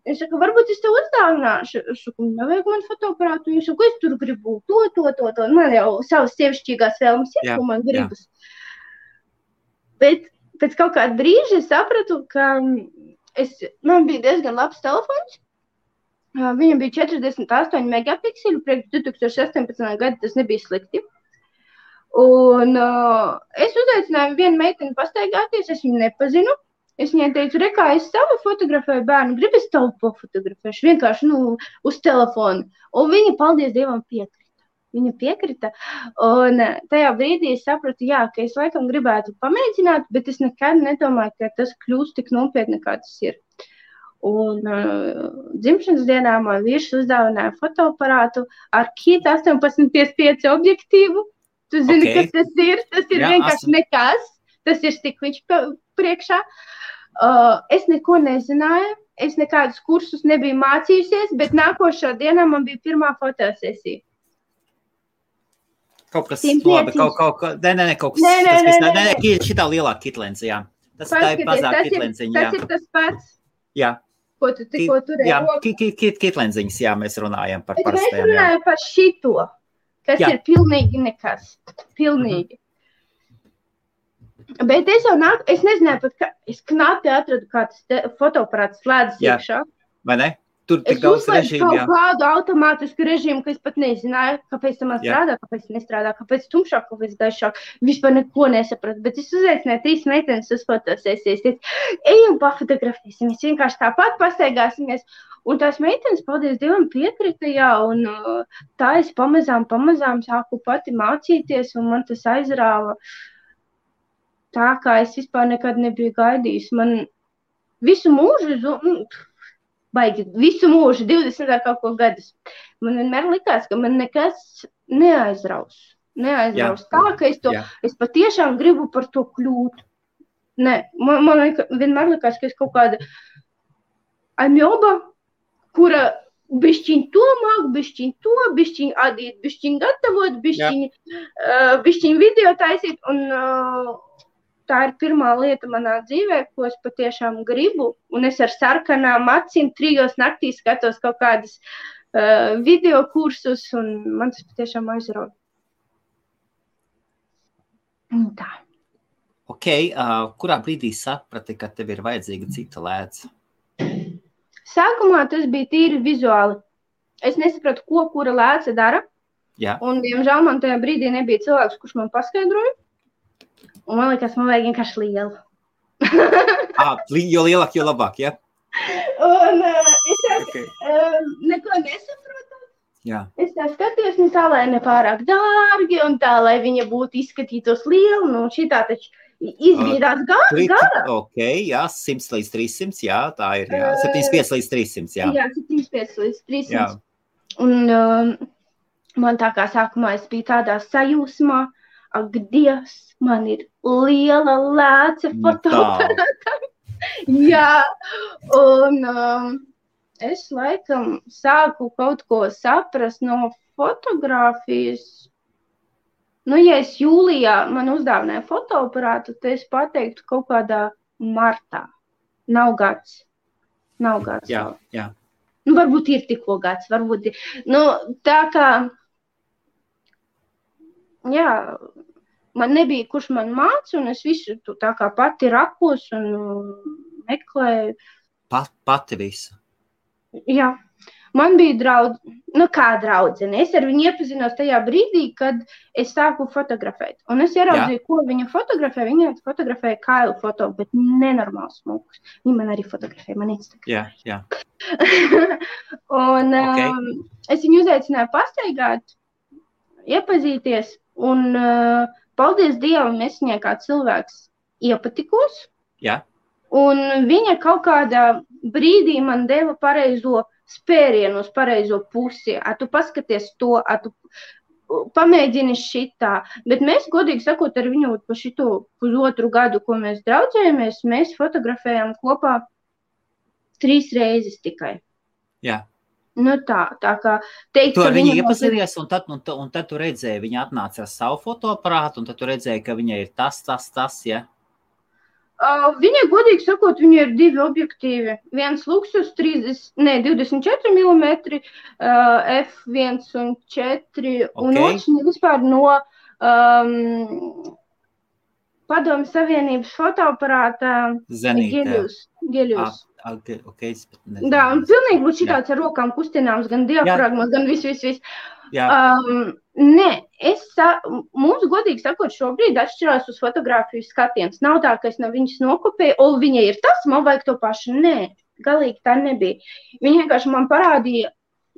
[SPEAKER 2] Es saku, varbūt es tev uzdāvināšu. Es saku, nevajag man fotoaparātu. Es saku, es tur gribu to. Man jau savas sievišķīgās vēlmes ir, ko man gribas. Bet pēc kaut kāda brīža es sapratu, ka man bija diezgan labs telefons. Viņam bija 48 megapikseli, priekš 2018. Gada tas nebija slikti. Un es uzaicināju vienu meiteni pastaigāties, es viņu nepazinu. Es viņai teicu, kā es savu fotografēju bērnu, gribu es tavu pofotografēšu, vienkārši, uz telefonu. Un viņa, paldies Dievam, piekrita. Viņa piekrita. Un tajā brīdī es sapratu, ka es laikam gribētu pamēģināt, bet es nekad nedomāju, ka tas kļūst tik nopietni, kā tas ir. Un dzimšanas dienā man vīrs uzdāvināja fotoaparātu ar Kit 1855 objektīvu. Tu zini, kas tas ir? Tas ir vienkārši nekas. Tas ir stikliņš priekšā. Es neko nezināju. Es nekādus kursus nebiju mācījusies, bet nākošā dienā man bija pirmā fotosesija.
[SPEAKER 1] Kaut kas labi, kaut kas. Nē, šitā lielā kitlenze, jā. Tas tā ir mazāk kitlenziņa, jā.
[SPEAKER 2] Tas ir tas pats.
[SPEAKER 1] Jā.
[SPEAKER 2] Ko tu tikko turēji?
[SPEAKER 1] Jā, kitlenziņas, jā, mēs runājam par parastajām.
[SPEAKER 2] Mēs runājam par šito, kas ir pilnīgi nekas. Pilnīgi. Bet es nezināju pat, es knapi atradu, kā tas fotoaparāts slēdzas iekšā.
[SPEAKER 1] Vai ne? Tur tik daudz režīmu, jā.
[SPEAKER 2] Es uzlēju kaut kādu automātisku režīmu, ka es pat nezināju, kāpēc tam strādā, kāpēc nestrādā, kāpēc tumšāk, kāpēc gaišāk. Vispār neko nesapratu, bet es uzaicināju 3 meitenes uz fotosesijas. Ejam pafotografēsim, mēs vienkārši tāpat pastaigāsimies. Un tās meitenes, paldies Dievam, piekrita, jā, un tā es pamazām sāku pati mācīties, un man tas aizrāva tā, kā es vispār nekad nebiju gaidījis. Man visu mūžu, visu mūžu, 20 ar kaut ko gadus. Man vienmēr likās, ka man nekas neaizraus tā, ka es patiešām gribu par to kļūt. Nē, man vienmēr likās, ka es kaut kāda aņoba, kura bišķiņ to māk, bišķiņ adīt, bišķiņ gatavot, bišķiņ video taisīt, un tā ir pirmā lieta manā dzīvē, ko es patiešām gribu, un es ar sarkanām acīm 3 naktī skatos kaut kādas video kursus, un man tas patiešām aizrauj. Tā.
[SPEAKER 1] Ok, kurā brīdī saprati, ka tev ir vajadzīga cita lēca?
[SPEAKER 2] Sākumā tas bija tīri vizuāli. Es nesapratu, ko kura lēca dara.
[SPEAKER 1] Jā.
[SPEAKER 2] Un, diemžēl, man tajā brīdī nebija cilvēks, kurš man paskaidroja. Un man liekas, man vajag vienkārši lielu.
[SPEAKER 1] Jo lielāk, jo labāk, ja?
[SPEAKER 2] Un es neko nesaprotu.
[SPEAKER 1] Jā.
[SPEAKER 2] Es tā skatījos, nu tā, lai nepārāk dārgi, un tā, lai viņa būtu izskatītos liela, nu šitā taču izviedās gara.
[SPEAKER 1] Ok, jā, 100 līdz 300, jā, tā ir, jā, 75 līdz 300, jā.
[SPEAKER 2] Jā, 75 līdz 300.
[SPEAKER 1] Jā.
[SPEAKER 2] Un man tā kā sākumā es biju tādā sajūsmā, ak, Dievs, man ir liela lēce fotoaparātam. Jā, un es laikam sāku kaut ko saprast no fotogrāfijas. Nu, ja es jūlijā man uzdāvināju fotoaparātu, tad es pateiktu kaut kādā martā. Nav gads.
[SPEAKER 1] Jā, jā.
[SPEAKER 2] Nu, varbūt ir tikko gads, varbūt ir. Nu, tā kā, jā, man nebija, kurš man māca, un es visu tā kā pati rakos un meklēju.
[SPEAKER 1] Pati visu.
[SPEAKER 2] Jā, man bija draudzene. Es ar viņu iepazinos tajā brīdī, kad es sāku fotografēt. Un es ieraudzīju, ko viņa fotografē. Viņa fotografēja kailu foto, bet nenormāls smukus. Viņa man arī fotografēja, man Instagram.
[SPEAKER 1] Jā.
[SPEAKER 2] Un es viņu uzaicināju pastaigāt, iepazīties. Un paldies Dievam, es viņai kā cilvēks iepatikos.
[SPEAKER 1] Jā.
[SPEAKER 2] Un viņa kaut kādā brīdī man deva pareizo spērienu uz pareizo pusi. Tu paskaties to, tu pamēģini šitā. Bet mēs, godīgi sakot, ar viņu pa šito 1,5 gadu, ko mēs draudzējamies, mēs fotografējām kopā 3 reizes tikai.
[SPEAKER 1] Jā.
[SPEAKER 2] Nu tā kā teikt,
[SPEAKER 1] tu ar viņu iepazinies, un tad tu redzēji, viņa atnāca ar savu fotoaparātu, un tad tu redzēji, ka viņai ir tas, ja?
[SPEAKER 2] Viņai, godīgi sakot, viņai ir 2 objektīvi. Viens Luxus 24 mm, f1 un 4, un otrs vispār no Padomju Savienības fotoaparāta Geļus. Da, un pilnīgi būtu šitāds ar rokām kustināms, gan diafragmas, gan viss. Nē, mums, godīgi sakot, šobrīd atšķirās uz fotogrāfiju skatiens. Nav tā, ka es no viņas nokopēju, o, viņai ir tas, man vajag to pašu. Nē, galīgi tā nebija. Viņa vienkārši man parādīja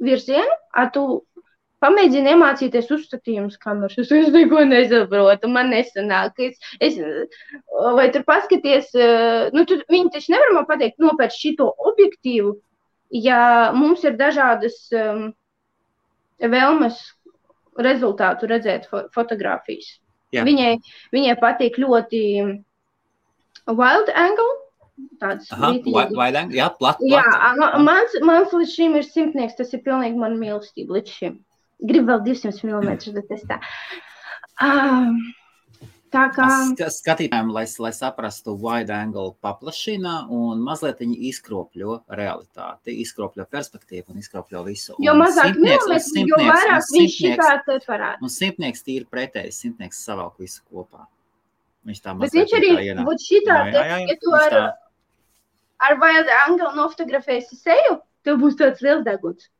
[SPEAKER 2] virzienu, tu pamēģini iemācīties uzstatījumus kameras. Es neko nesaprotu, man nesanāk. Vai tur paskaties, viņi taču nevar man pateikt, nopērc šito objektīvu, ja mums ir dažādas vēlmes rezultātu redzēt fotogrāfijas. Viņai patīk ļoti wild angle.
[SPEAKER 1] Wild angle, jā, plat.
[SPEAKER 2] Jā, mans līdz šim ir 100, tas ir pilnīgi man mīlestība līdz šim. Gribu vēl 200 mm, bet es tā. Tā kā...
[SPEAKER 1] Skatītājiem, lai saprastu, wide angle paplašina un mazliet viņi izkropļo realitāti, izkropļo perspektīvu un izkropļo visu.
[SPEAKER 2] Jo mazāk milimetri, jo vairāk viņš šitā te parāda.
[SPEAKER 1] Un 100 ir pretējs, 100 savalk visu kopā. Viņš tā
[SPEAKER 2] mazliet. Bet viņš arī būtu šitā te, ja tu ar wide angle nofotografēsi seju, tev būs tāds liels deguns.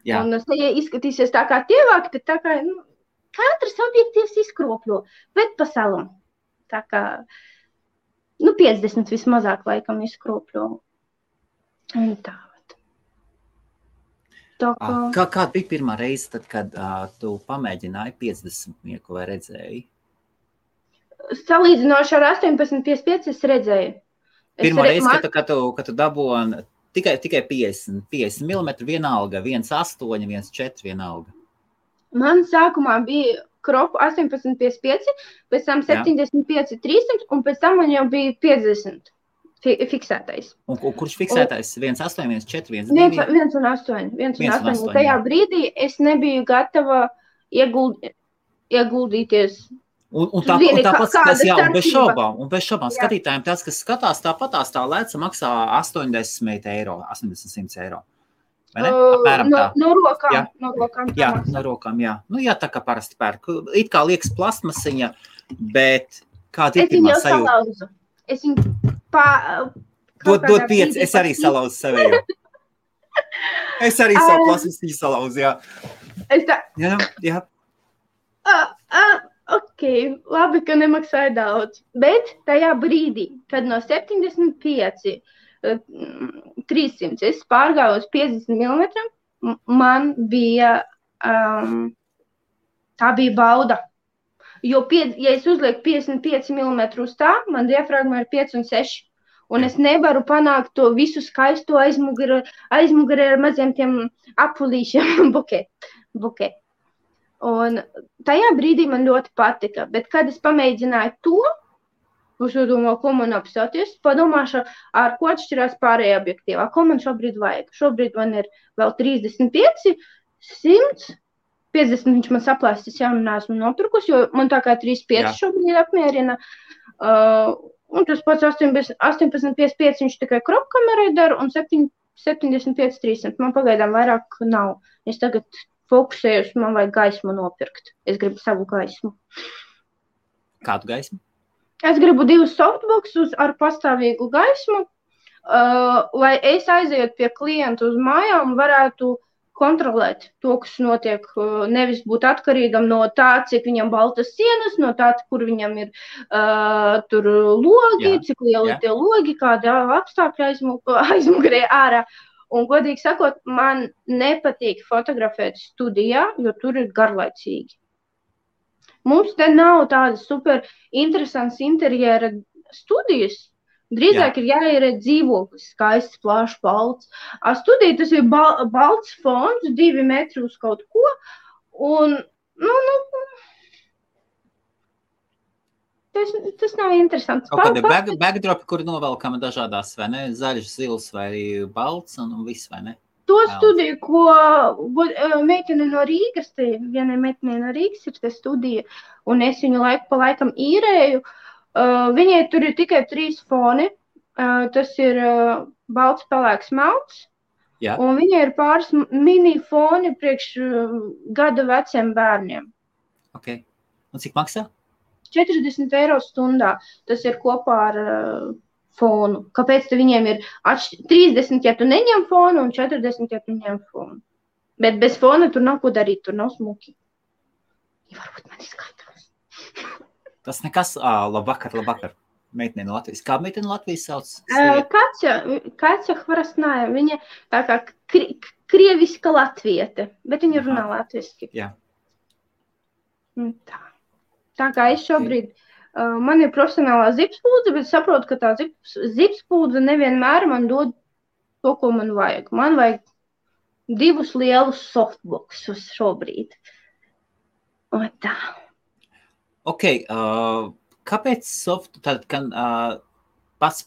[SPEAKER 2] Jā. Un seja izskatīsies tā kā tievāk, bet tā kā, katrs objektīvs izkropļo, bet pa salam. Tā kā, 50 vismazāk laikam izkropļo. Un tā.
[SPEAKER 1] Kāda bija pirmā reize, tad, kad tu pamēģināji 50 vai redzēji?
[SPEAKER 2] Salīdzinoši ar 18,55 es redzēju.
[SPEAKER 1] Pirmā reize, kad tu dabūji tikai 50 mm vienalga, 1,8, 1,4 vienalga.
[SPEAKER 2] Man sākumā bija kropu 18,55, pēc tam 75,300 un pēc tam man jau bija 50 fiksētais.
[SPEAKER 1] Un kurš fiksētais? 1,8, 1,4, 1,2?
[SPEAKER 2] 1,8. Tajā brīdī es nebiju gatava ieguldīties.
[SPEAKER 1] Un tāpat skatās, un bez šaubām skatītājiem tas, kas skatās tāpatās tā lēca maksā 80 eiro, 80 eiro. Vai ne? Apmēram tā.
[SPEAKER 2] No rokām.
[SPEAKER 1] No rokām, jā. Nu, jā, tā kā parasti pērk. It kā liekas plastmasiņa, bet kāda ir pirmā sajūta?
[SPEAKER 2] Es viņu salauzu.
[SPEAKER 1] Dod 5, es arī salauzu sevējo. Es arī savu plastmasiņu salauzu, jā. Jā.
[SPEAKER 2] Ok, labi, ka nemaksāja daudz. Bet tajā brīdī, kad no 75 300 es pārgāju uz 50 mm, man bija, tā bija bauda. Jo, ja es uzlieku 55 mm uz tā, man diafragma ir 5 un 6. Un es nevaru panākt to visu skaisto aizmugurē ar maziem tiem apulīšiem buket. Un tajā brīdī man ļoti patika, bet kad es pamēģināju to, es domāju, ko man apstāties, padomāšu, ar ko atšķirās pārējā objektīvā, ko man šobrīd vajag. Šobrīd man ir vēl 35, 100, 50 viņš man saplēstis, jā, un esmu nopirkus, jo man tā kā 35 šobrīd apmierina. Un tas pats 18,55 viņš tikai kropkamerai dara, un 75,300 man pagaidām vairāk nav. Es tagad fokusējos, man vajag gaismu nopirkt. Es gribu savu gaismu.
[SPEAKER 1] Kādu gaismu?
[SPEAKER 2] Es gribu 2 softboxus ar pastāvīgu gaismu, lai es aizejot pie klientu uz mājām, varētu kontrolēt to, kas notiek, nevis būt atkarīgam no tā, cik viņam baltas sienas, no tā, kur viņam ir tur logi, cik lieli tie logi, kāda apstākļa aizmugurē ārā. Un, godīgi sakot, man nepatīk fotografēt studijā, jo tur ir garlaicīgi. Mums te nav tādas super interesants interjera studijas. Drīzāk ir jāieredz dzīvoklis, skaists, plašs, balts. Studija tas ir balts fons, 2 metri uz kaut ko. Un, tas nav interesants.
[SPEAKER 1] Kaut kādi backdropi, kuri novelkama dažādās, vai ne? Zaļš, zils vai balts un viss, vai ne?
[SPEAKER 2] To studiju, ko meitene no Rīgas, vienai meitenei no Rīgas ir te studija, un es viņu laiku pa laikam īrēju. Viņai tur ir tikai 3 foni. Tas ir balts, pelēks, melns. Un viņai ir pāris mini foni priekš gada veciem bērniem.
[SPEAKER 1] Ok. Un cik maksā?
[SPEAKER 2] 40 eiro stundā. Tas ir kopā ar fonu. Kāpēc viņiem ir 30, ja tu neņem fonu, un 40, ja tu ņem fonu. Bet bez fona tur nav ko darīt, tur nav smuki. Ja varbūt man izskaitās.
[SPEAKER 1] Tas nekas. Labvakar. Meitene no Latvijas. Kā meitene no Latvijas sauc?
[SPEAKER 2] Katja Hvarasnāja. Viņa tā kā krieviska latviete, bet viņa runā latviski.
[SPEAKER 1] Jā.
[SPEAKER 2] Tā kā es šobrīd, man ir profesionālā zipspūdze, bet saprotu, ka tā zipspūdze nevienmēr man dod to, ko man vajag. Man vajag 2 lielus softboxus šobrīd. Un tā.
[SPEAKER 1] Ok, kāpēc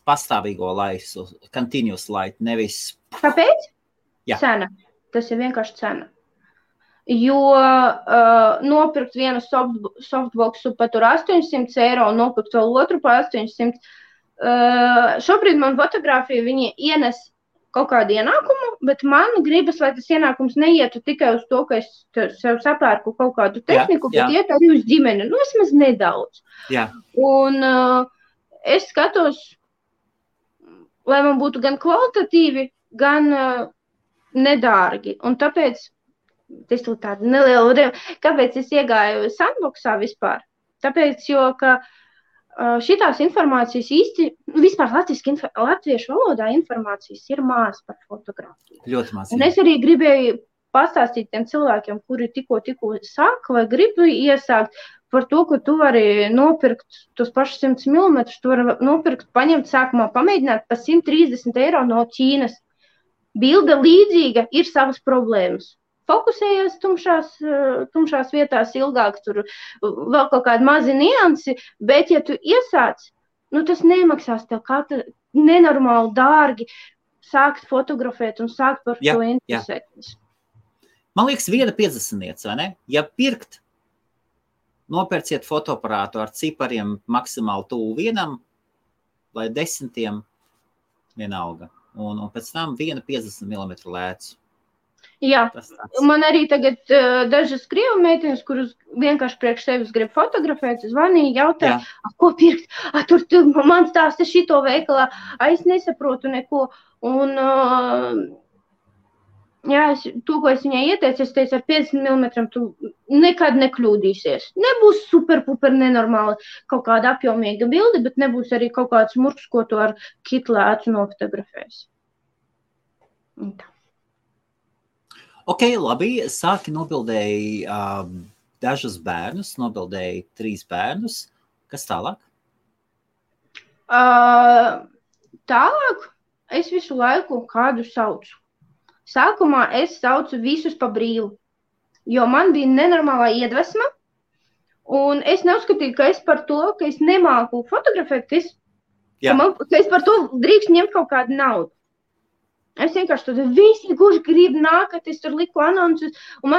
[SPEAKER 1] pastāvīgo laisu, continuous light, nevis...
[SPEAKER 2] Kāpēc?
[SPEAKER 1] Jā.
[SPEAKER 2] Cena. Tas ir vienkārši cena. Jo nopirkt vienu softboxu pa tur 800 eiro un nopirkt vēl otru pa 800. Šobrīd man fotografija viņi ienes kaut kādu ienākumu, bet man gribas, lai tas ienākums neietu tikai uz to, ka es sev sapērku kaut kādu tehniku, bet iet arī uz ģimeni. Vismaz nedaudz.
[SPEAKER 1] Jā. Un
[SPEAKER 2] es skatos, lai man būtu gan kvalitatīvi, gan nedārgi. Un tāpēc tas ir tāda neliela kāpēc es iegāju sandboxā vispār? Tāpēc, jo, ka šitās informācijas īsti, vispār latviešu valodā informācijas ir maz par fotografiju.
[SPEAKER 1] Ļoti maz.
[SPEAKER 2] Un es arī gribēju pastāstīt tiem cilvēkiem, kuri tikko sāka vai gribu iesākt par to, ka tu vari nopirkt tos pašus 100 mm, tu vari nopirkt, paņemt sākumā, pamēģināt pa 130 eiro no Ķīnas. Bilde līdzīga, ir savas problēmas. fokusējies tumšās vietās ilgāk, tur vēl kaut kādi mazi niansi, bet ja tu iesāc, tas nemaksās tev nenormāli dārgi sākt fotografēt un sākt par to interesēties.
[SPEAKER 1] Man liekas, 1,50, vai ne? Ja pirkt, nopērciet fotoaparātu ar cipariem maksimāli tuvu 1 vai 10 vienalga. Un pēc tam 1,50 mm lēcu.
[SPEAKER 2] Jā, man arī tagad dažas krievu meitenes, kuras vienkārši priekš sevis grib fotografēt, zvanīja, jautāja, ko pirkt? Tur man stāsta šito veikalā, es nesaprotu neko. Un, to, ko es viņai ieteicu, es teicu, ar 50 mm tu nekad nekļūdīsies. Nebūs super nenormāli kaut kāda apjomīga bilde, bet nebūs arī kaut kāds murks, ko tu ar kitlēcu nofotografēs.
[SPEAKER 1] Ok, labi, sāki nobildēji dažus bērnus, nobildēji 3 bērnus. Kas tālāk?
[SPEAKER 2] Tālāk es visu laiku kādu saucu. Sākumā es saucu visus pa brīvu, jo man bija nenormālā iedvesma, un es neuzskatīju, ka es par to, ka es nemāku fotografēt, ka es par to drīkst ņemt kaut kādu naudu. Es vienkārši tur visi, kurš grib nākt, es tur liku anonsus, un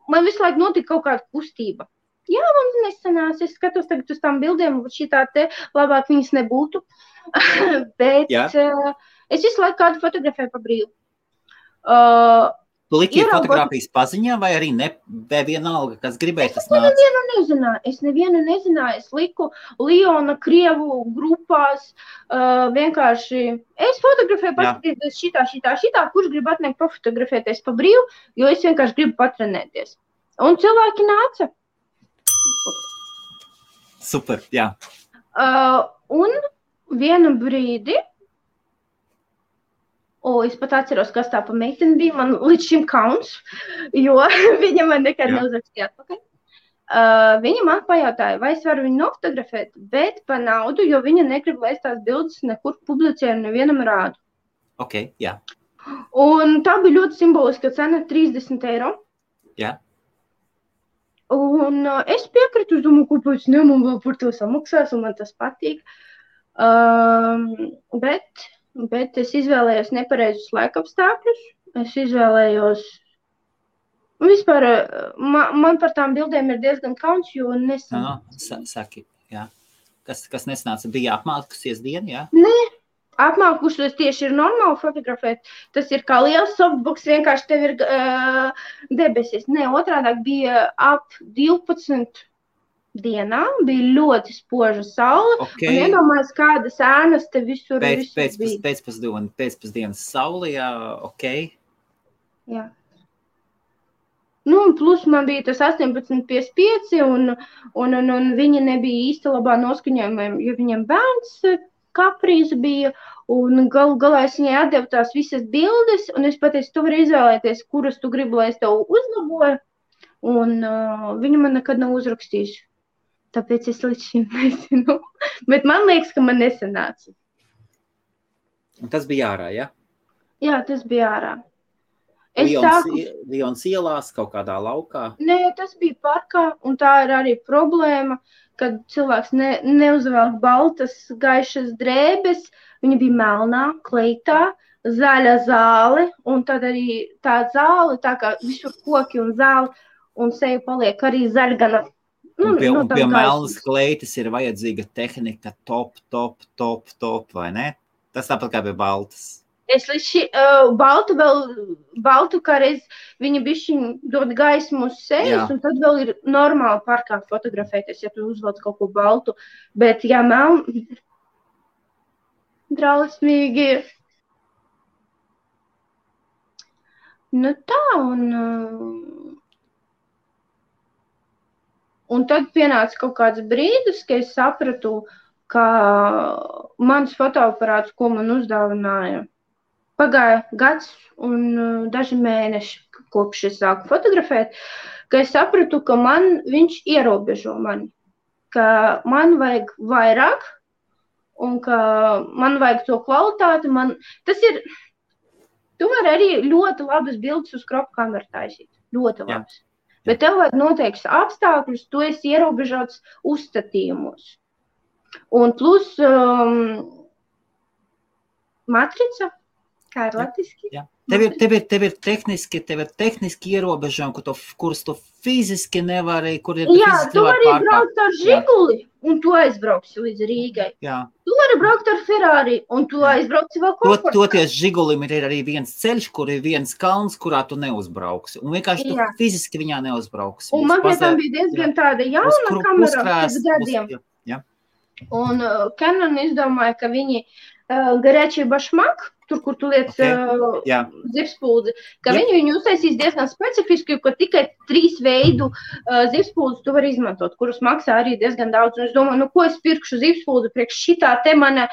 [SPEAKER 2] man visu laiku notika kaut kāda kustība. Jā, man nesanās, es skatos tagad uz tām bildēm, šitā te labāk viņas nebūtu, bet es visu laiku kādu fotografēju pa brīvu.
[SPEAKER 1] Tu liki fotogrāfijas paziņā vai arī vienalga, kas gribēja tas nāc?
[SPEAKER 2] Es nevienu nezināju. Es liku Liona Krievu grupās, vienkārši es fotografēju paskatīties šitā, kurš grib atnākt pafotografēties pa brīvu, jo es vienkārši gribu patrenēties. Un cilvēki nāca.
[SPEAKER 1] Super, jā.
[SPEAKER 2] Un vienu brīdi, es pat atceros, kas tā pa meiteni bija, man līdz šim kauns, jo viņa man nekad neuzrakstīja atpakaļ. Viņa man pajautāja, vai es varu viņu nofotografēt, bet pa naudu, jo viņa negrib, lai es tās bildes nekur publicēju un nevienam rādu.
[SPEAKER 1] Ok, jā.
[SPEAKER 2] Un tā bija ļoti simboliska cena, 30 eiro.
[SPEAKER 1] Jā.
[SPEAKER 2] Un es piekritu, es domāju, kāpēc ne, man vēl par to samaksās, un man tas patīk. Bet es izvēlējos nepareizus laikapstākļus. Es izvēlējos... Vispār, man par tām bildēm ir diezgan kauns, jo nesanāca.
[SPEAKER 1] Saki, jā. Kas nesanāca? Bija apmākusies diena, jā?
[SPEAKER 2] Nē, apmākusies tieši ir normāli fotografēt. Tas ir kā liels softbox, vienkārši tev ir debesis. Nē, otrādāk bija ap 12 dienā, bija ļoti spoža saule, un iedomājas, kādas ēnas te visur bija.
[SPEAKER 1] Pēcpusdienas saule, jā, ok.
[SPEAKER 2] Jā. Un plus man bija tas 18:55, un viņa nebija īsti labā noskaņojumā, jo viņam bērns kaprīze bija, un galā es viņai atdevu tās visas bildes, un es pateicu, tu vari izvēlēties, kuras tu gribi, lai es tev uzlaboju, un viņa man nekad nav uzrakstījusi. Tāpēc es līdz šim nezinu. Bet man liekas, ka man nesanāca.
[SPEAKER 1] Un tas bija ārā, ja?
[SPEAKER 2] Jā, tas bija ārā.
[SPEAKER 1] Lions ielās kaut kādā laukā?
[SPEAKER 2] Nē, tas bija parkā, un tā ir arī problēma, kad cilvēks neuzvelk baltas, gaišas drēbes. Viņa bija melnā, kleitā, zaļa zāle, un tad arī tā zāle, tā kā visur koki un zāle, un seja paliek arī zaļgana.
[SPEAKER 1] Un pie melnas kleitas ir vajadzīga tehnika top, vai ne? Tas tāpat kā pie baltas.
[SPEAKER 2] Es līdz baltu kā reiz viņa bišķiņ dod gaismu uz sejas, un tad vēl ir normāli parkā fotografēties, ja tu uzvelc kaut ko baltu. Bet, ja drausmīgi. Tā, un tad pienāca kaut kāds brīdis, ka es sapratu, ka mans fotoaparāts, ko man uzdāvināja, pagāja gads un daži mēneši, kopš es sāku fotografēt, ka es sapratu, ka viņš ierobežo mani, ka man vajag vairāk un ka man vajag to kvalitāti. Tas ir Tu vari arī ļoti labas bildes uz kropu kameru taisīt. Ļoti labas. Bet tev vajag noteikts apstākļus, tu esi ierobežots uzstatījumos. Un plus matrica, kā ir latviski?
[SPEAKER 1] Jā. Tev ir tehniski ierobežojumi, kurus tu fiziski nevari, kur ir
[SPEAKER 2] tu vari braukt ar Žiguli, un tu aizbrauksi līdz Rīgai.
[SPEAKER 1] Jā.
[SPEAKER 2] Tu vari braukt ar Ferrari, un tu aizbrauksi vēl komfortā.
[SPEAKER 1] Toties Žigulim ir arī viens ceļš, kur ir viens kalns, kurā tu neuzbrauksi. Un vienkārši tu fiziski viņā neuzbrauksi.
[SPEAKER 2] Un man pie tam bija diezgan tāda jauna kamera pēc gadiem. Un Canon izdomāja, ka viņi garēčī bašmak, tur, kur tu liec zivspūdzi, ka viņi uztaisīs diezgan specifiski, ka tikai 3 veidu zivspūdzi tu vari izmantot, kurus maksā arī diezgan daudz. Un es domāju, ko es pirkšu zivspūdzi priekš šitā te mana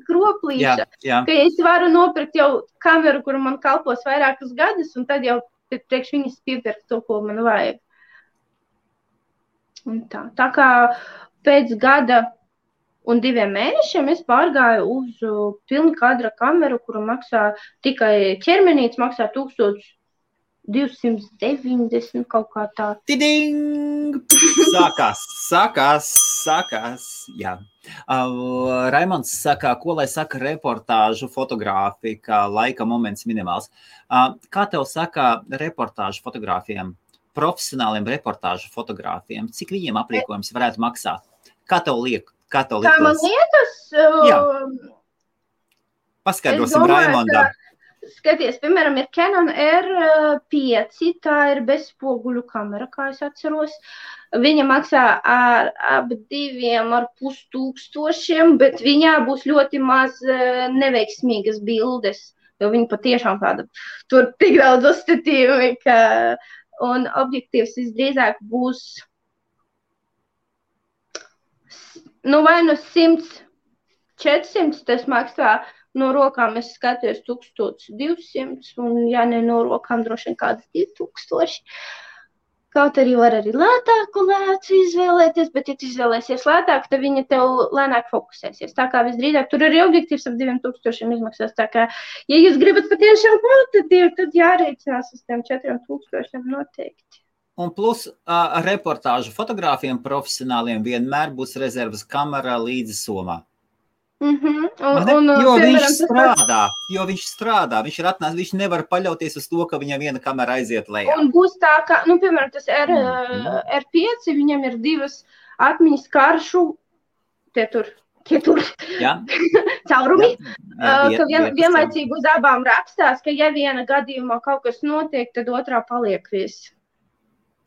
[SPEAKER 2] kroplīša, ka es varu nopirkt jau kameru, kuru man kalpos vairākus gadus, un tad jau priekš viņas piepirkt to, ko man vajag. Un tā kā pēc gada un 2 mēnešiem es pārgāju uz pilna kadra kameru, kuru maksā tikai ķermenīts, maksā 1290 kaut kā tā.
[SPEAKER 1] Tiding! Sākās, jā. Raimonds saka, ko lai saka reportāžu fotogrāfija, laika moments minimāls. Kā tev saka reportāžu fotogrāfiem, profesionāliem reportāžu fotogrāfiem, cik viņiem aprīkojums varētu maksāt? Kā tev liekas? Kā
[SPEAKER 2] man liekas?
[SPEAKER 1] Paskaidrosim Raimondam.
[SPEAKER 2] Skaties, piemēram, ir Canon R5, tā ir bezspoguļu kamera, kā es atceros. Viņa maksā ap 2,5 tūkstošiem, bet viņā būs ļoti maz neveiksmīgas bildes, jo viņa patiešām tāda, tur tik daudz uzstatījumi, un objektīvs visdrīzāk būs vai no 100-400 tas maksā, no rokām es skatījos 1200, un ja ne no rokām droši vien kādas 2000. Kaut arī var arī lētāku lēcu izvēlēties, bet ja tu izvēlēsies lētāk, tad viņa tev lēnāk fokusēsies. Tā kā visdrīzāk, tur arī objektīvs ap 2000 izmaksās. Tā kā, ja jūs gribat patiešām kvalitatīvi, tad jārēķinās uz tiem 4000 noteikti.
[SPEAKER 1] Un plus reportāžu fotogrāfiem profesionāliem vienmēr būs rezervas kamera līdzi somā. Jo viņš strādā, viņš ir atnācis, viņš nevar paļauties uz to, ka viņam viena kamera aiziet lejā. Un
[SPEAKER 2] būs tā, ka, piemēram, tas R5, viņam ir 2 atmiņas karšu, tie tur caurumi, ka vienlaicīgi uz abām rakstās, ka ja viena gadījumā kaut kas notiek, tad otrā paliek viss.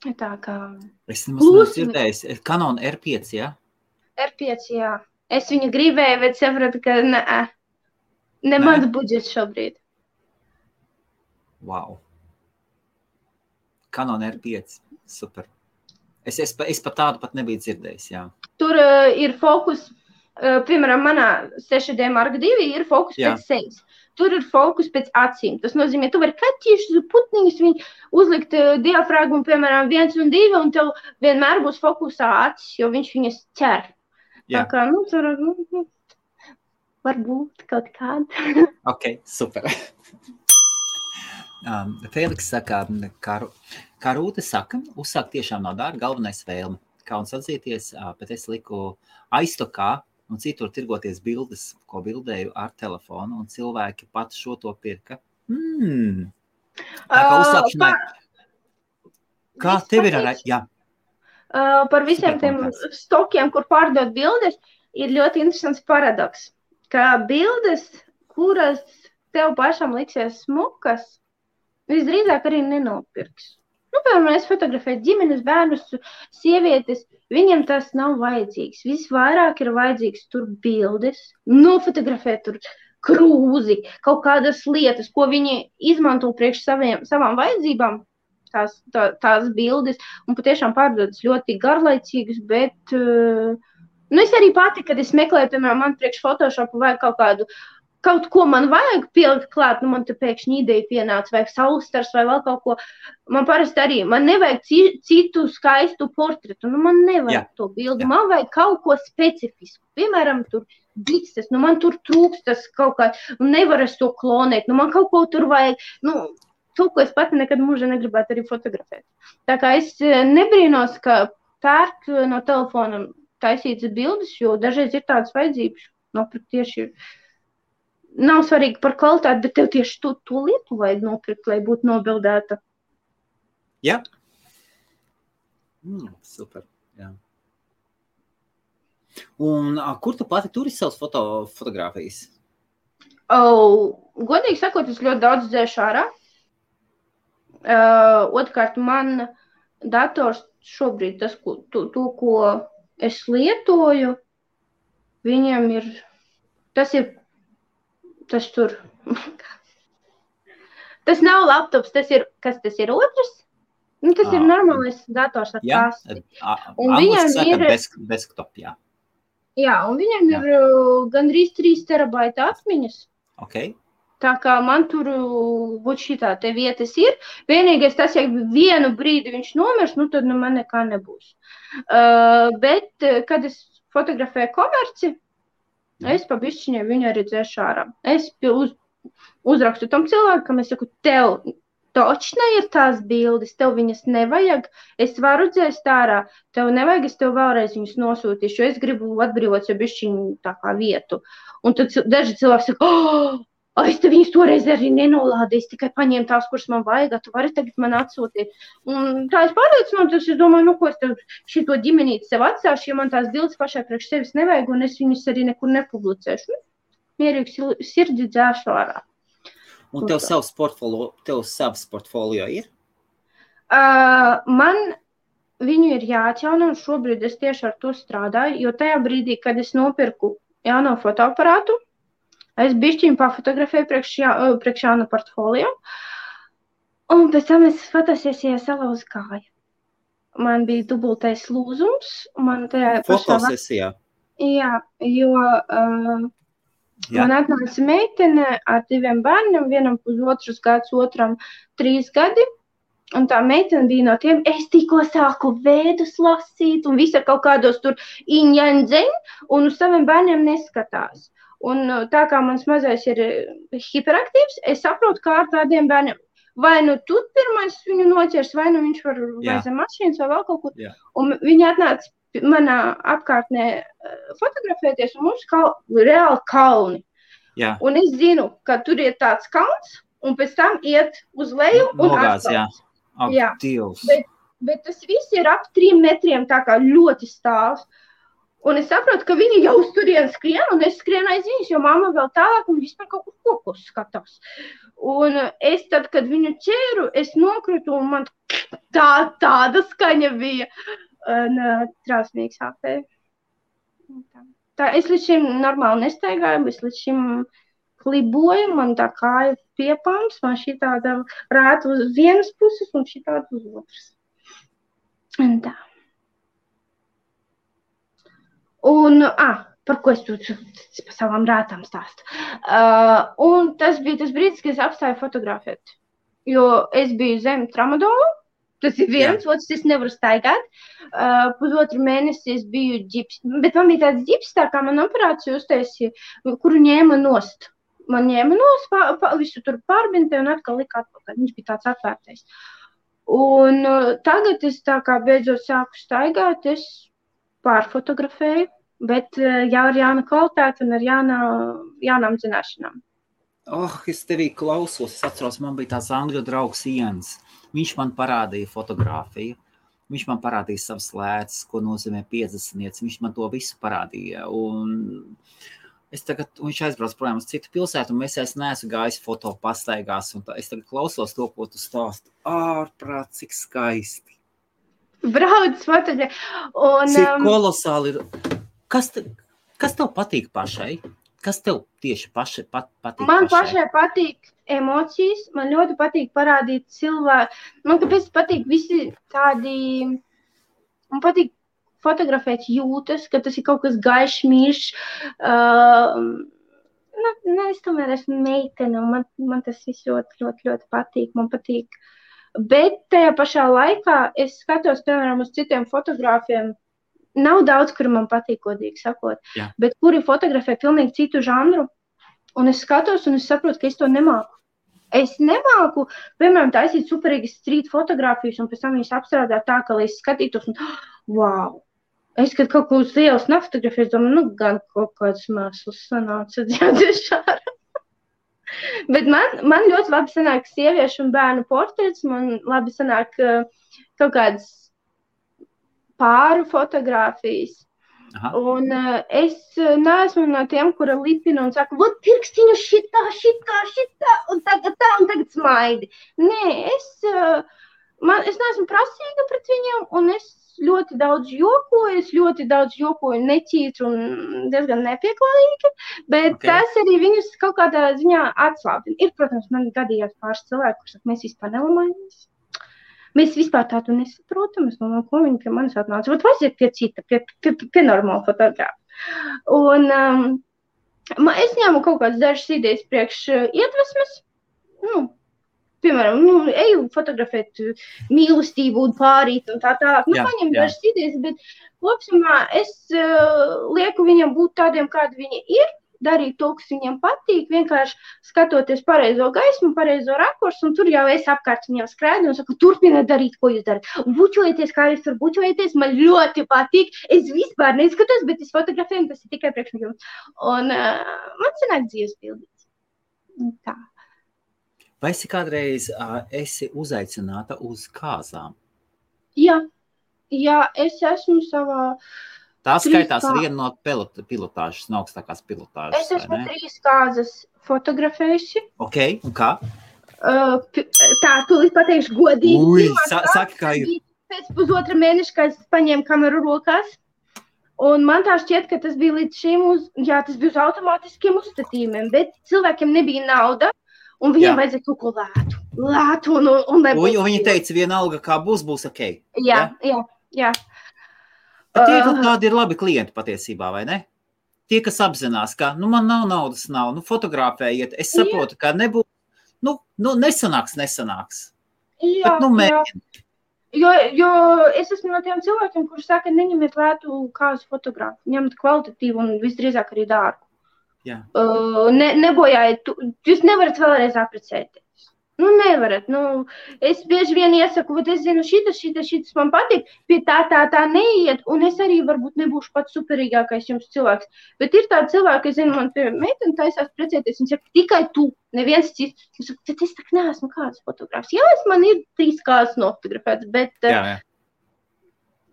[SPEAKER 2] Tā kā...
[SPEAKER 1] Es nemaz dzirdējis. Canon R5, jā?
[SPEAKER 2] R5, jā. Es viņu gribēju, bet sapratu, ka ne mans budžets šobrīd.
[SPEAKER 1] Wow. Canon R5, super. Es pat tādu pat nebiju dzirdējis, jā.
[SPEAKER 2] Tur ir fokus, piemēram, manā 6D Mark II ir fokus pēc sejas. Tur ir fokus pēc acīm. Tas nozīmē, tu vari kaķīšus, putniņus, viņi uzlikt diafragmu, piemēram, 1 un 2, un tev vienmēr būs fokusā acis, jo viņš viņas ķer. Tā kā, tur varbūt kaut kāda.
[SPEAKER 1] Ok, super. Feliks saka, kā Rūte saka, uzsākt tiešām nav dārgi, galvenais vēlme. Kauns atzīties, bet es liku aiztokā, un citur tirgoties bildes, ko bildēju ar telefonu, un cilvēki pat šo to pirka. Tā kā uzsākšanai. Kā tev ir ar... Jā.
[SPEAKER 2] Par visiem tiem stokiem, kur pārdot bildes, ir ļoti interesants paradoks, ka bildes, kuras tev pašam liksies smukas, visdrīzāk arī nenopirks. Piemēram, es fotografēju ģimenes, bērnus, sievietes, viņiem tas nav vajadzīgs. Visvairāk ir vajadzīgs tur bildes, nofotografēt tur krūzi, kaut kādas lietas, ko viņi izmanto priekš savām vajadzībām, tās bildes, un patiešām pārdodas ļoti garlaicīgas, bet es arī pati, kad es meklēju, piemēram, man priekš Photoshopu vajag kaut ko man vajag pielikt klāt, man te pēkšņi ideja pienāca, vai saulstars, vai vēl kaut ko. Man parasti arī, man nevajag citu skaistu portretu, man nevajag to bildi, man vajag kaut ko specifisku. Piemēram, tur bikses, nu man tur trūks tas kaut kā, nu nevar es to klonēt, nu man kaut ko tur vajag, nu, to, ko es pati nekad mūžā negribētu arī fotografēt. Tā kā es nebrīnos, ka pērk no telefona taisītas bildes, jo dažreiz ir tādas vajadzības, nopirkt tieši, nav svarīgi par kvalitāti, bet tev tieši to lietu vajag nopirkt, lai būtu nobildēta.
[SPEAKER 1] Jā. Super, jā. Un kur tu pati turi savas fotogrāfijas?
[SPEAKER 2] Godīgi sakot, es ļoti daudz dzēšu ārā. Otrkārt, man dators šobrīd, to, ko es lietoju, viņam ir, tas tur, tas nav laptops, tas ir otrs? Nu, tas ir normālais dators ar kasti. Un viņam ir
[SPEAKER 1] desktop, jā.
[SPEAKER 2] Jā, un viņam ir gandrīz 3 terabaita atmiņas.
[SPEAKER 1] Okay.
[SPEAKER 2] Tā kā man tur šitā te vietas ir. Vienīgais tas, ja vienu brīdi viņš nomirs, nu tad man nekā nebūs. Bet, kad es fotografēju komerci, es pa bišķiņai viņu arī dzēšu ārā. Es uzrakstu tam cilvēkam, es saku, tev točna ir tās bildes, tev viņas nevajag, es varu dzēst ārā, tev nevajag, es tev vēlreiz viņas nosūtīšu, jo es gribu atbrīvot jau bišķiņu tā kā vietu. Un tad daži cilvēki saka, es te viņas toreiz arī nenolādīju, es tikai paņēmu tās, kuras man vajag, tu vari tagad man atsūtīt. Un tā es pārliecināju, es domāju, nu ko es tev šito ģimenīti sev atstāšu, ja man tās bildes pašai priekš sevis nevajag, un es viņas arī nekur nepublicēšu. Mierīgi sirdi dzēšu ārā.
[SPEAKER 1] Un tev savs portfolio ir?
[SPEAKER 2] Man viņu ir jāatjauno, un šobrīd es tieši ar to strādāju, jo tajā brīdī, kad es nopirku jauno fotoaparātu, es bišķiņu pafotografēju priekš jaunu portfolio, un pēc tam es fotosesijā salauzu kāju. Man bija dubultais lūzums, man tajā
[SPEAKER 1] fotosesijā?
[SPEAKER 2] Jā, jo... Man atnāca meitene ar 2 bērniem, vienam 1,5 gads, otram 3 gadi, un tā meitene bija no tiem, es tikko sāku vēdus lasīt, un visi ar kaut kādos tur iņaņdzeņ, un uz saviem bērniem neskatās. Un tā kā mans mazais ir hiperaktīvs, es saprotu, kā ar tādiem bērniem, vai nu tu pirmais viņu noķers, vai nu viņš var vai zem mašīnas vai vēl kaut kur, un viņi atnāca manā apkārtnē fotografēties, un mums reāli kalni.
[SPEAKER 1] Jā.
[SPEAKER 2] Un es zinu, ka tur ir tāds kalns, un pēc tam iet uz leju un
[SPEAKER 1] atkal. Jā.
[SPEAKER 2] Bet tas viss ir ap 3 metriem, tā kā ļoti stāvs. Un es saprotu, ka viņi jau uz turien skrien, un es skrienu aiz viņus, jo mamma vēl tālāk un vispār kaut kur kokos skatās. Un es tad, kad viņu ķēru, es nokritu, un man tāda skaņa bija. Un trausmīgi sāpēja. Tā, es līdz šim normāli nestaigāju, es līdz šim kliboju, man tā kāja piepams, man šī tāda rāta uz vienas puses un šī tāda uz otras. Un tā. Un, par ko es tur pa savām rātām stāstu. Un tas bija tas brīdis, kad es apstāju fotografēt, jo es biju zem tramadolu. Tas ir viens, otrs es nevaru staigāt. 1,5 mēnesi es biju ģips, bet man bija tāds ģips, tā kā man operāciju uztaisīja, kuru ņēma nost. Man ņēma nost, visu tur pārbintē un atkal lika atpakaļ. Viņš bija tāds atvērtais. Un tagad es tā kā beidzot sāku staigāt, es pārfotografēju, bet jau ar jaunu kvalitāti un ar jaunām zināšanām.
[SPEAKER 1] Es tevī klausos, es atceros, man bija tāds angļu draugs Ians. Viņš man parādīja fotogrāfiju, viņš man parādīja savas lēcas, ko nozīmē 50. Viņš man to visu parādīja. Un viņš aizbrauc projām uz citu pilsētu, un es neesmu gājis foto pastaigās. Un es tagad klausos to, ko tu stāsti. Ārprāt, cik skaisti.
[SPEAKER 2] Brauc fotogrāfija.
[SPEAKER 1] Cik kolosāli ir. Kas tev patīk pašai? Kas tev tieši patīk?
[SPEAKER 2] Man pašai patīk emocijas, man ļoti patīk parādīt cilvēku. Man kāpēc patīk visi tādi, man patīk fotografēt jūtas, ka tas ir kaut kas gaišs, mīļš. Es tomēr esmu meitene, un man tas viss ļoti, ļoti, ļoti patīk. Man patīk. Bet tajā pašā laikā es skatos, piemēram, uz citiem fotogrāfiem, nav daudz, kuri man patīk, godīgi sakot, bet kuri fotografē pilnīgi citu žanru, un es skatos, un es saprotu, ka es to nemāku. Es nemāku, piemēram, taisīt superīgas street fotogrāfijas, un pēc tam viņas apstrādāt tā, ka, lai es skatītos, un wow! Es, kad kaut ko uz ielas nefotografēju, domāju, gan kaut kāds mēsls sanāca dziedešāra. Bet man ļoti labi sanāk sieviešu un bērnu portrets, man labi sanāk kaut kādas pāru fotogrāfijas. Aha. Un es neesmu no tiem, kura lipina un saka, vot pirkstiņu šitā, un tagad smaidi. Nē, es neesmu prasīga pret viņiem, un es ļoti daudz jokoju neķītru un diezgan nepieklājīgi, bet tas arī viņus kaut kādā ziņā atslābina. Ir, protams, man gadījās pāris cilvēku, kurus mēs vispār nelamājamies. Mēs vispār tādu nesaprotam, es domāju, ko viņi pie manis atnāca. Vat vajag pie cita, pie normāla fotografa. Un es ņēmu kaut kādas dažas idejas priekš iedvesmes, piemēram, eju fotografēt mīlestību un pārīt un tā tālāk. Paņem dažas idejas, bet kopsumā es lieku viņam būt tādiem, kādi viņi ir, darīt to, kas viņiem patīk, vienkārši skatoties pareizo gaismu, pareizo rakursu, un tur jau es apkārt viņiem skrēdu un saku, turpiniet darīt, ko jūs darat. Bučojieties, kā jūs tur bučojieties, man ļoti patīk. Es vispār neskatos, bet es fotografēju, tas ir tikai priekš jums. Un man sanāk dzīves pildīts. Tā.
[SPEAKER 1] Vai esi kādreiz esi uzaicināta uz kāzām?
[SPEAKER 2] Jā, es esmu savā...
[SPEAKER 1] Tā skaitās viena no pilotāžas, no augstākās pilotāžas.
[SPEAKER 2] Es esmu 3 kāzas fotografējusi.
[SPEAKER 1] Ok, un kā?
[SPEAKER 2] Tā, tūlīt pateikšu godīgi.
[SPEAKER 1] Saki, kā ir.
[SPEAKER 2] Pēc pusotra mēneša, kad es paņēmu kameru rokās, un man tā šķiet, ka tas bija līdz šim tas bija uz automātiskiem uzstatījumiem, bet cilvēkiem nebija nauda, un viņiem vajadzēja kaut ko lētu un nebūs.
[SPEAKER 1] Un viņi teica, vienalga, kā būs ok.
[SPEAKER 2] Jā.
[SPEAKER 1] Bet tādi ir labi klienti patiesībā, vai ne? Tie, kas apzinās, ka, man nav naudas, fotografējiet, es saprotu, ka nebūs, nesanāks.
[SPEAKER 2] Jā,
[SPEAKER 1] bet, mēģini.
[SPEAKER 2] Jo es esmu no tiem cilvēkiem, kurš saka, neņemiet lētu kāzu fotografu, ņemt kvalitatīvu un visdrīzāk arī dārgu.
[SPEAKER 1] Jā.
[SPEAKER 2] Nebojājiet, jūs nevarat vēlreiz aprecēties. Nevarat. Es bieži vien iesaku, bet es zinu, šitas man patīk, pie tā neiet, un es arī varbūt nebūšu pats superīgākais jums cilvēks. Bet ir tādi cilvēki, es zinu, man pie meiteni taisās precēties, un saka, tikai tu, neviens cits. Es saku, bet es tak neesmu kāds fotogrāfs. Jā, man ir 3 kāds nofotografēts, bet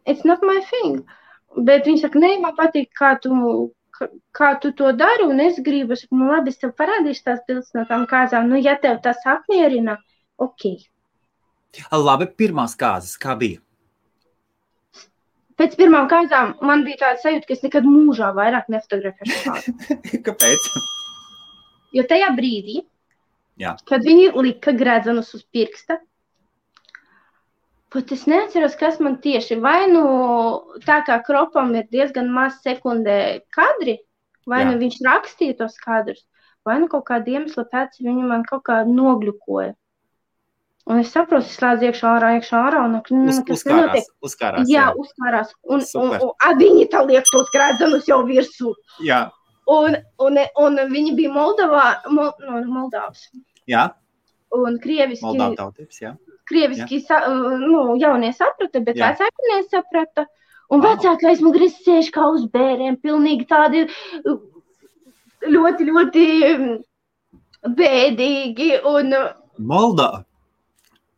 [SPEAKER 2] it's not my thing. Bet viņi saka, man patīk, kā tu to dari, un es gribu, labi, es tev parādīšu tās bildes no tām kāzām, ja tev tas apmierina, ok.
[SPEAKER 1] Labi, pirmās kāzas, kā bija?
[SPEAKER 2] Pēc pirmām kāzām man bija tāda sajūta, ka es nekad mūžā vairāk nefotografēšu kāzu.
[SPEAKER 1] Kāpēc?
[SPEAKER 2] Jo tajā brīdī, kad viņi lika gredzenus uz pirksta, pat es neatceros, kas man tieši, vai tā kā kropam ir diezgan maz sekundē kadri, vai viņš rakstīja tos kadrus, vai kaut kāda iemesla pēc viņu man kaut kā nogļukoja. Un es saprotu, es slēdzu iekšā ārā, un
[SPEAKER 1] uzkārās.
[SPEAKER 2] Jā, uzkārās. Un viņi tā liek tos gredzenus jau virsū.
[SPEAKER 1] Jā.
[SPEAKER 2] Un viņi bija Moldavas.
[SPEAKER 1] Jā.
[SPEAKER 2] Un krieviski.
[SPEAKER 1] Moldāvu tautības, jā.
[SPEAKER 2] Krieviski jaunie saprata, bet vecāki nesaprata. Un vecāki aizmugurē sēž kā uz bēriem, pilnīgi tādi ļoti, ļoti bēdīgi. Un,
[SPEAKER 1] Moldāva?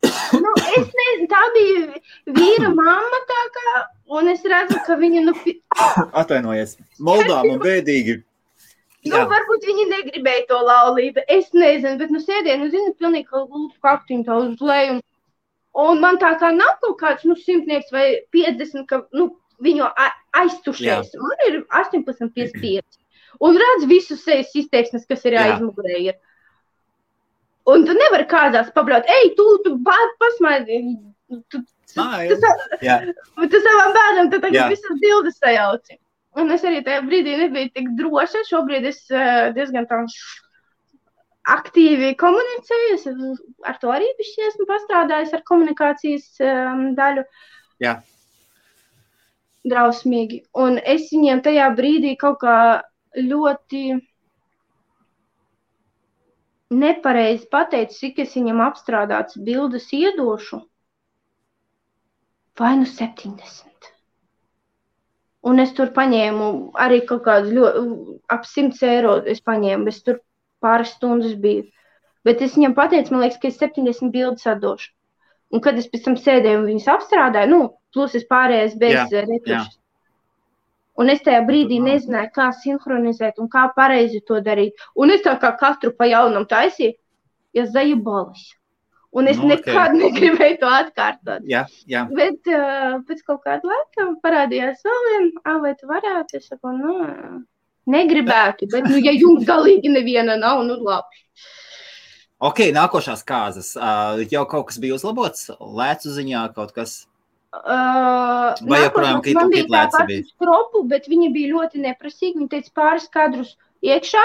[SPEAKER 2] Es nezinu, tā bija vīra mamma tā kā, un es redzu, ka viņa
[SPEAKER 1] Atvainojies, Moldāva un bēdīgi.
[SPEAKER 2] Varbūt viņi negribēja to laulību, es nezinu, bet sēdien, zinu, pilnīgi kā lūpu kaktiņu tā uz leju. Un man tā kā nav kaut kāds, 100 vai 50, ka, viņu aiztušies. Man ir 18,55. Un redz visu sejas izteiksmes, kas ir aizmugurē ir. Un tu nevari kādās pabraut, tu pasmaidi. Tu savām bērnam tad tagad visas bildes sajauci. Un es arī tajā brīdī nebiju tik droša. Šobrīd es diezgan tā aktīvi komunicēju. Es ar to arī esmu pastrādājis ar komunikācijas daļu.
[SPEAKER 1] Jā.
[SPEAKER 2] drausmīgi. Un es viņiem tajā brīdī kaut kā ļoti nepareizi pateicu, cik es viņam apstrādāts bildes iedošu. Vai nu 70. Un es tur paņēmu arī kaut kādu ap 100 eiro es paņēmu, bet tur pāris stundas biju. Bet es viņam pateicu, man liekas, ka es 70 bildes atdošu. Un kad es pēc tam sēdēju un viņas apstrādāju, plus es pārējais bez retušas. Un es tajā brīdī nezināju, kā sinhronizēt un kā pareizi to darīt. Un es tā kā katru pa jaunam taisīju, ja zajubalis. Un es nekad negribēju to atkārtot.
[SPEAKER 1] Jā.
[SPEAKER 2] Bet pēc kaut kāda laika parādījās vēl viena, vai tu varētu? Es saku, negribētu, bet ja jums galīgi neviena nav, labi.
[SPEAKER 1] Ok, nākošās kāzas. Jau kaut kas bija uzlabots? Lēcu ziņā kaut kas? Vai joprojām
[SPEAKER 2] man bija tā pati skropu, bet viņi bija ļoti neprasīgi. Viņi teica pāris kadrus iekšā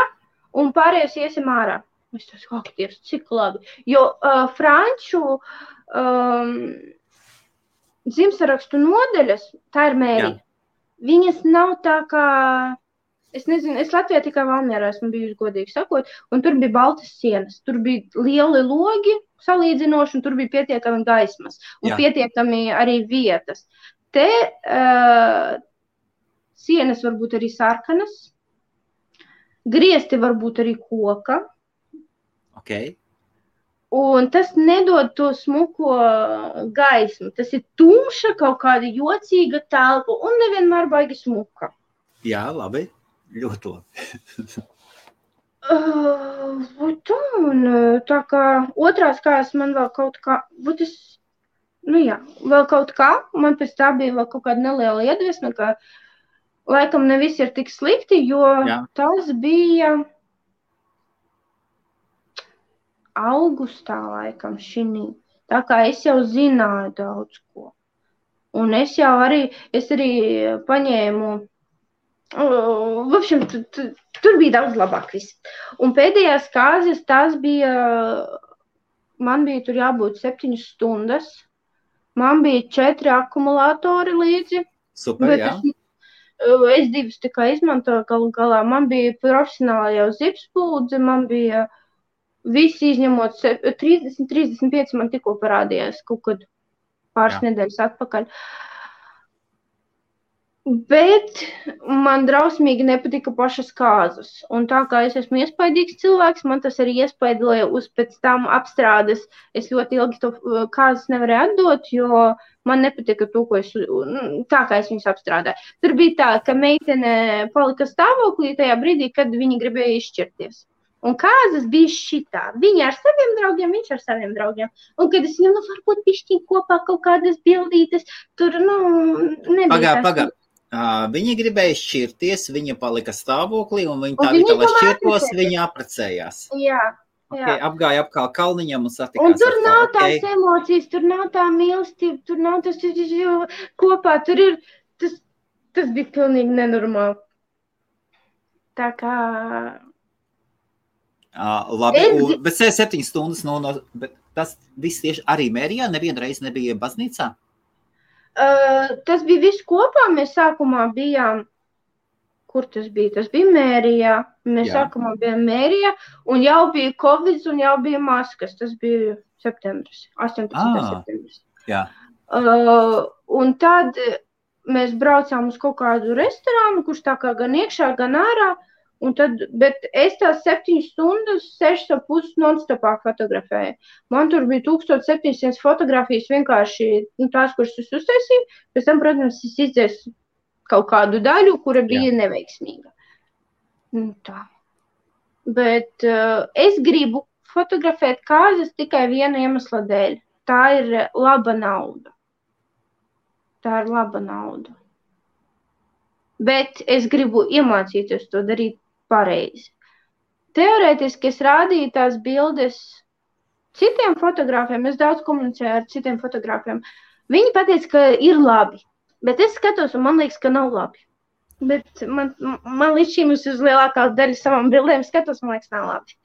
[SPEAKER 2] un pārējos iesim ārā. Es teicu, aktievs, cik labi. Jo franču dzimstarakstu nodaļas, tā ir mērija. Viņas nav tā kā, es nezinu, es Latvijā tikai Valmierā esmu bijusi, godīgi sakot, un tur bija baltas sienas. Tur bija lieli logi salīdzinoši, un tur bija pietiekami gaismas, un pietiekami arī vietas. Te sienas varbūt arī sarkanas, griesti varbūt arī koka.
[SPEAKER 1] Okay.
[SPEAKER 2] Un tas nedod to smuko gaismu. Tas ir tumša, kaut kāda jocīga telpa un nevienmēr baigi smuka.
[SPEAKER 1] Jā, labi. Ļoti labi.
[SPEAKER 2] Tā kā otrās kājas man vēl kaut kā, vēl kaut kā, man pēc tā bija vēl kaut kāda neliela iedvesma, ka laikam ne viss ir tik slikti, jo tas bija augustā laikam šinī. Tā kā es jau zināju daudz ko. Un es arī paņēmu, tur bija daudz labāk viss. Un pēdējās kāzas, man bija tur jābūt 7 stundas, man bija 4 akumulātori līdzi.
[SPEAKER 1] Super, jā.
[SPEAKER 2] Es 2 tikai izmantoju galu galā. Man bija profesionāli jau zipspūdze, man bija visi izņemot 30-35 man tikko parādījās kaut kad pāris nedēļas atpakaļ. Bet man drausmīgi nepatika pašas kāzas. Un tā kā es esmu iespaidīgs cilvēks, man tas arī iespaidīja uz pēc tam apstrādes. Es ļoti ilgi to kāzas nevarēju atdot, jo man nepatika to, ko tā kā es viņus apstrādāju. Tur bija tā, ka meitene palika stāvoklī tajā brīdī, kad viņi gribēja izšķirties. Un kāzas bija šitā. Viņi ar saviem draugiem, viņš ar saviem draugiem. Un kad es viņam, varbūt pišķiņ kopā kaut kādas bildītes, tur, nebija
[SPEAKER 1] Pagā. Viņi gribēja šķirties, viņa palika stāvoklī, un viņi tā vietā, lai šķirtos, viņi apprecējās.
[SPEAKER 2] Jā.
[SPEAKER 1] Okay, apgāja apkārt kalniņam un satikās.
[SPEAKER 2] Un tur nav tās emocijas, tur nav tā mīlestība, tur nav tas kopā, tur ir, tas bija pilnīgi nenormāli. Tā kā...
[SPEAKER 1] Labi, bet 7 stundas, bet tas viss tieši arī Mērijā, nevienreiz nebija baznīcā?
[SPEAKER 2] Tas bija viss kopā, mēs sākumā bijām, kur tas bija? Tas bija Mērijā, mēs sākumā bijām Mērijā, un jau bija Covid, un jau bija maskas, tas bija septembris, 18. septembris.
[SPEAKER 1] Jā.
[SPEAKER 2] Un tad mēs braucām uz kaut kādu restorānu, kurš tā kā gan iekšā, gan ārā, un tad, bet es tās 7 stundas, 6,5 non-stopā fotografēju. Man tur bija 1700 fotografijas vienkārši tās, kuras es uztaisīju. Pēc tam, protams, es izdzēsu kaut kādu daļu, kura bija neveiksmīga. Tā. Bet es gribu fotografēt kāzas tikai viena iemesla dēļ. Tā ir laba nauda. Bet es gribu iemācīties to darīt pareizi. Teorētiski es rādīju tās bildes citiem fotogrāfiem, es daudz komunicēju ar citiem fotogrāfiem. Viņi pateica, ka ir labi, bet es skatos un man liekas, ka nav labi. Bet man līdz šīm uz lielākā daļa savām bildēm skatos, man liekas, nav labi.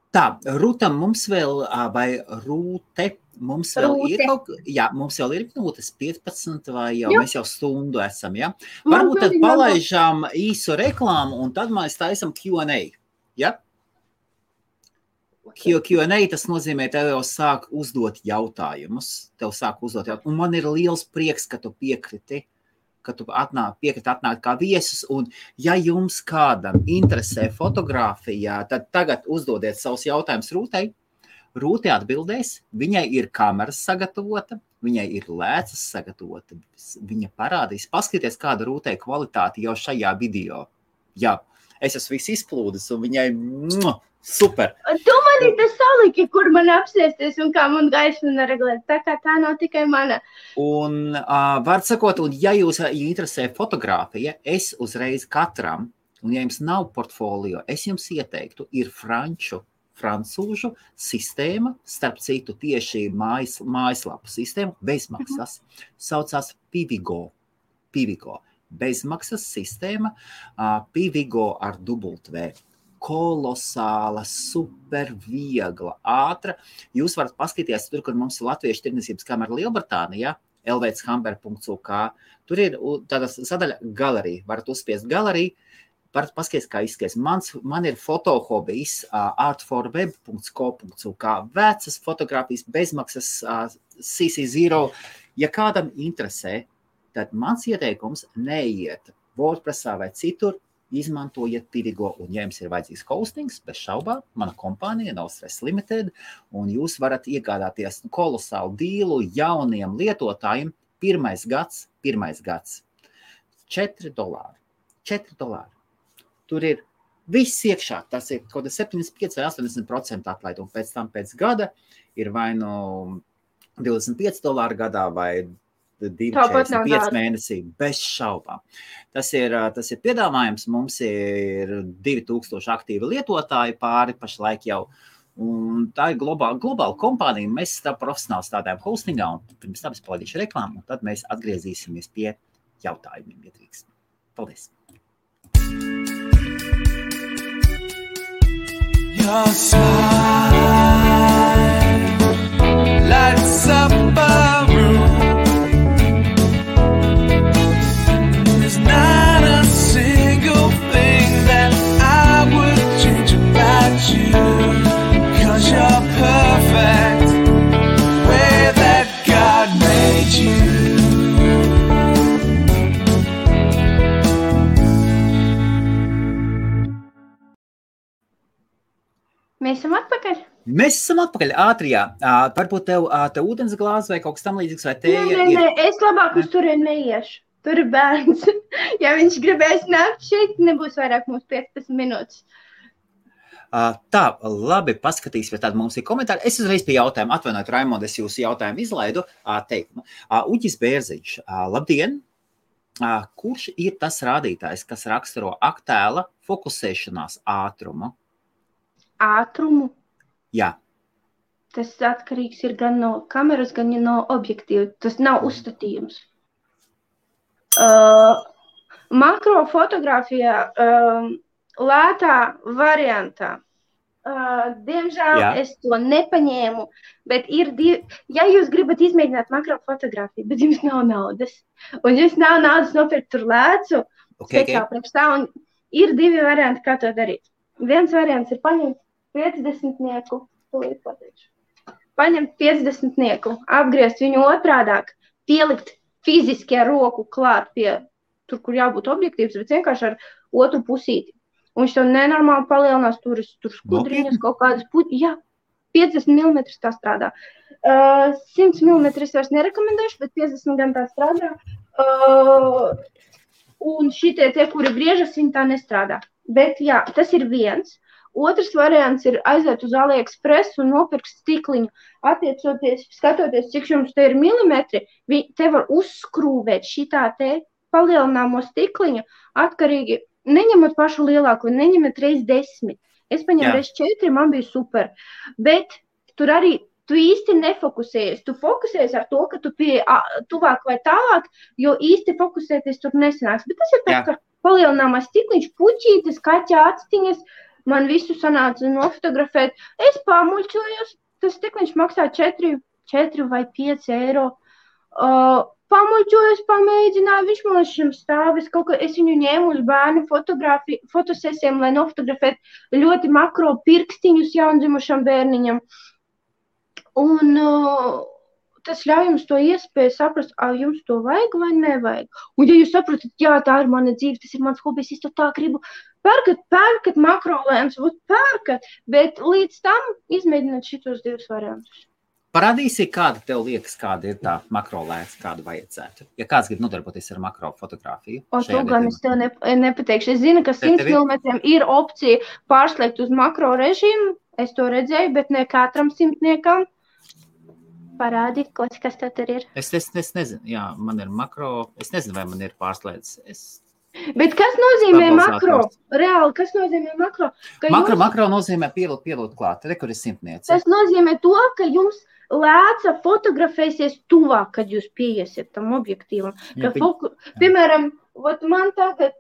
[SPEAKER 1] Tā, Rūtam mums vēl, vai Rūte, mums vēl ir mums vēl ir minūtes 15 vai jau, mēs jau stundu esam, ja? Varbūt tad palaižām īsu reklāmu un tad mēs taisam Q&A, ja? Q&A tas nozīmē, tev jau sāk uzdot jautājumus, un man ir liels prieks, ka tu piekriti, ka tu piekriti atnākt kā viesus, un ja jums kādam interesē fotogrāfijā, tad tagad uzdodiet savus jautājumus Rūtei. Rūte atbildēs, viņai ir kameras sagatavota, viņai ir lēcas sagatavota, viņa parādīs, paskaties, kāda Rūtei kvalitāte jau šajā video. Jā, es esmu viss izplūdis, un viņai super.
[SPEAKER 2] Tu mani te saliki, kur man apsēsties un kā man gaismu neregulēt, tā kā tā nav tikai mana.
[SPEAKER 1] Un var sakot, un ja jūs interesē fotogrāfija, es uzreiz katram, un ja jums nav portfolio, es jums ieteiktu, ir francūžu sistēma, starp citu tieši mājaslapu sistēma, bezmaksas, saucās Pivigo, bezmaksas sistēma, Pivigo ar W. Kolosāla, super viegla, ātra. Jūs varat paskatīties tur, kur mums ir Latviešu tirdzniecības kamera Lielbritānijā, lvchamber.uk. Tur ir tāda sadaļa galerija. Varat uzspiest galeriju, varat paskatīties, kā izskaties. Man ir fotohobijs artforweb.co.uk. Vecas fotogrāfijas, bezmaksas CC0. Ja kādam interesē, tad mans ieteikums neiet WordPressā vai citur, izmantojiet Pivigo, un ja jums ir vajadzīgs hostings, bez šaubām, mana kompānija nav Stress Limited, un jūs varat iegādāties kolosālu dīlu jauniem lietotājiem. Pirmais gads, $4. Tur ir viss iekšā, tas ir kaut 75 vai 80% atlaid, un pēc tam pēc gada ir vai no $25 gadā vai 2,45 mēnesī, bez šaubām. Tas ir piedāvājums, mums ir 2000 aktīvi lietotāji pāri pašlaik jau, un tā ir globāla kompānija, mēs profesionāli strādājam hostingā, un pirms tam es palaidīšu reklāmu, un tad mēs atgriezīsimies pie jautājumiem, ja drīkst. Paldies! Your smile lights up a room. Not a single thing that I would change about you, 'cause you're perfect the way that God made you.
[SPEAKER 2] Mēs esam atpakaļ?
[SPEAKER 1] Mēs esam atpakaļ ātrijā. Varbūt tev ūdens glāze vai kaut kas tam līdzīgs vai tēja?
[SPEAKER 2] Nē, es labāk uz turien neiešu. Tur ir bērns. Ja viņš gribēs nākt šeit, nebūs vairāk mums 15 minūtes.
[SPEAKER 1] Tā, labi, paskatīsimies, tad mums ir komentāri. Es uzreiz pie jautājuma, atvainojiet, Raimond, es jūsu jautājumu izlaidu teikumu. Uģis Bērziņš, labdien! Kurš ir tas rādītājs, kas raksturo attēla fokusēšanās ātrumu?
[SPEAKER 2] Ātrumu?
[SPEAKER 1] Jā.
[SPEAKER 2] Tas atkarīgs ir gan no kameras, gan no objektīva. Tas nav uzstatījums. Makrofotogrāfijā lētā variantā. Diemžēl es to nepaņēmu, bet ir ja jūs gribat izmēģināt makrofotogrāfiju, bet jums nav naudas, un jums nav naudas nopirkt tur lēcu, un ir divi varianti, kā to darīt. Viens variants ir paņemt 50-nieku, paņemt 50-nieku, apgriezt viņu otrādāk, pielikt fiziski ar roku klāt pie tur, kur jābūt objektīvs, bet vienkārši ar otru pusīti. Un viņš to nenormāli palielinās, tur skudriņas, kaut kādas jā, 50 mm tā strādā. 100 mm es vairs nerekomendēšu, bet 50 gan tā strādā. Un šitie tie, kuri griežas, viņi tā nestrādā. Bet jā, tas ir viens. Otrs variants ir aiziet uz AliExpress un nopirkt stikliņu. Skatoties, cik jums te ir milimetri, te var uzskrūvēt šitā te palielināmo stikliņu atkarīgi. Neņemat pašu lielāko, neņemat reiz 10. Es paņēmu reiz 4, man bija super. Bet tur arī tu īsti nefokusējies. Tu fokusējies ar to, ka tu pie tuvāk vai tālāk, jo īsti fokusēties tur nesanāks. Bet tas ir tāds, ka palielināmais stikliņš, puķītes, kaķa actiņas, man visu sanāca nofotografēt. Es pamuļķojos, tas tik viņš maksā 4 vai 5 eiro. Pamuļķojos, pamēģināju, viņš man šim stāvis, es viņu ņēmu uz bērnu fotosesijām, lai nofotografētu ļoti makro pirkstiņus jaundzimušam bērniņam. Un tas ļauj jums to iespēju saprast, jums to vajag vai nevajag. Un ja jūs saprotat, jā, tā ir mana dzīve, tas ir mans hobijs, es to tā gribu, pērkat makrolēns, pērkat, bet līdz tam izmēģināt šitos 2 variantus.
[SPEAKER 1] Parādīsi, kāda tev liekas, kāda ir tā makrolēns, kādu vajadzētu. Ja kāds grib nodarboties ar makrofotogrāfiju.
[SPEAKER 2] To gan es tev nepateikšu. Es zinu, ka 100 mm ir opcija pārslēgt uz makro režīmu. Es to redzēju, bet ne katram simtniekam. Parādi, kas tev tur ir.
[SPEAKER 1] Es nezinu, jā, man ir makro. Es nezinu, vai man ir pārslēdz.
[SPEAKER 2] Bet kas nozīmē makro? Reāli, kas nozīmē makro?
[SPEAKER 1] Makro nozīmē pielūt klāt. Te, kur ir simtniece.
[SPEAKER 2] Tas nozīmē to, ka jums lēca fotografēsies tuvāk, kad jūs pieiesiet tam objektīvam. Piemēram, man tagad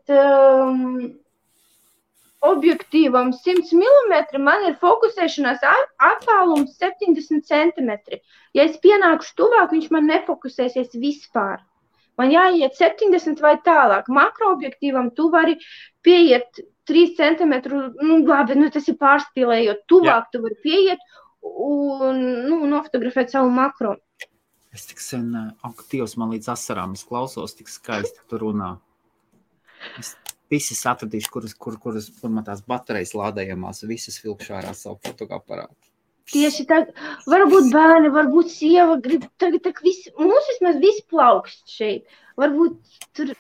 [SPEAKER 2] objektīvam 100 mm, man ir fokusēšanās attālums 70 cm. Ja es pienākušu tuvāk, viņš man nefokusēsies vispār. Man jāiet 70 vai tālāk. Makroobjektīvam tu vari pieiet 3 cm, labi, tas ir pārspīlējot. Tuvāk tu vari pieiet un nofotografēt savu makro.
[SPEAKER 1] Es tik sen, Dievs, man līdz asarām, es klausos, tik skaisti tu runā. Es visas atradīšu, kur man tās baterijas lādējamās, visas vilkšu ārā savu fotoaparātu.
[SPEAKER 2] Tieši tā, varbūt bērni, varbūt sieva grib, tagad visi, mums vismaz visi plaukst šeit. Varbūt tur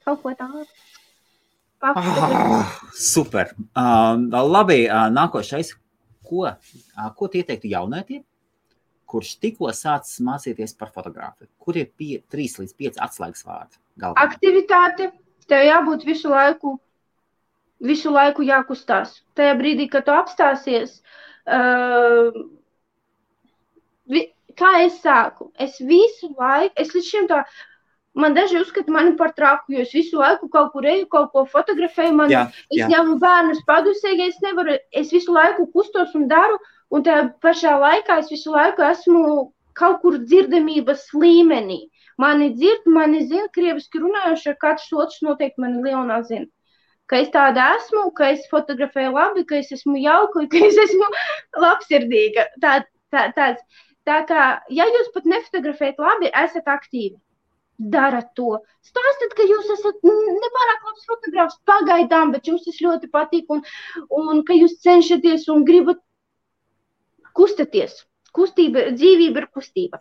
[SPEAKER 2] kaut ko tādu.
[SPEAKER 1] Super. Labi, nākošais. Ko tu ieteiktu jaunietiem, kurš tikko sācis mācīties par fotogrāfiju? Kur ir 3 līdz 5 atslēgas vārdi? Galvenā?
[SPEAKER 2] Aktivitāte. Tev jābūt visu laiku jākustās. Tajā brīdī, kad tu apstāsies, kā es sāku? Es visu laiku, es līdz šim tā, man daži uzskata mani par traku, jo es visu laiku kaut kur eju, kaut ko fotografēju, es ņemu bērnus padusē, ja es nevaru, es visu laiku kustos un daru, un tajā pašā laikā es visu laiku esmu kaut kur dzirdamības līmenī. Mani dzird, mani zina, krieviski runājuši, ar katrs otrs noteikti mani Leonā zina. Ka es tāda esmu, ka es fotografēju labi, ka es esmu jauka, ka es esmu labsirdīga. Tā kā, ja jūs pat nefotografējat labi, esat aktīvi. Darat to. Stāstat, ka jūs esat nepārāk labs fotogrāfs pagaidām, bet jums tas ļoti patīk un ka jūs cenšaties un gribat kustaties. Kustība, dzīvība ir kustība.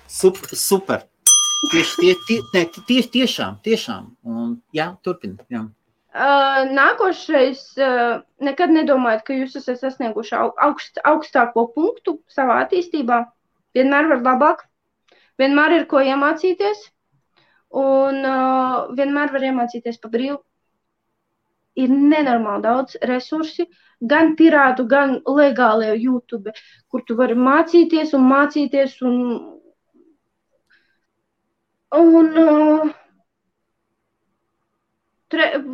[SPEAKER 1] Super. Tiešām. Un, jā, turpini. Jā.
[SPEAKER 2] Nākošais, nekad nedomājat, ka jūs esat sasnieguši augstāko punktu savā attīstībā. Vienmēr var labāk. Vienmēr ir ko iemācīties, un vienmēr var iemācīties pa brīvu. Ir nenormāli daudz resursi, gan pirātu, gan legālie YouTube, kur tu vari mācīties.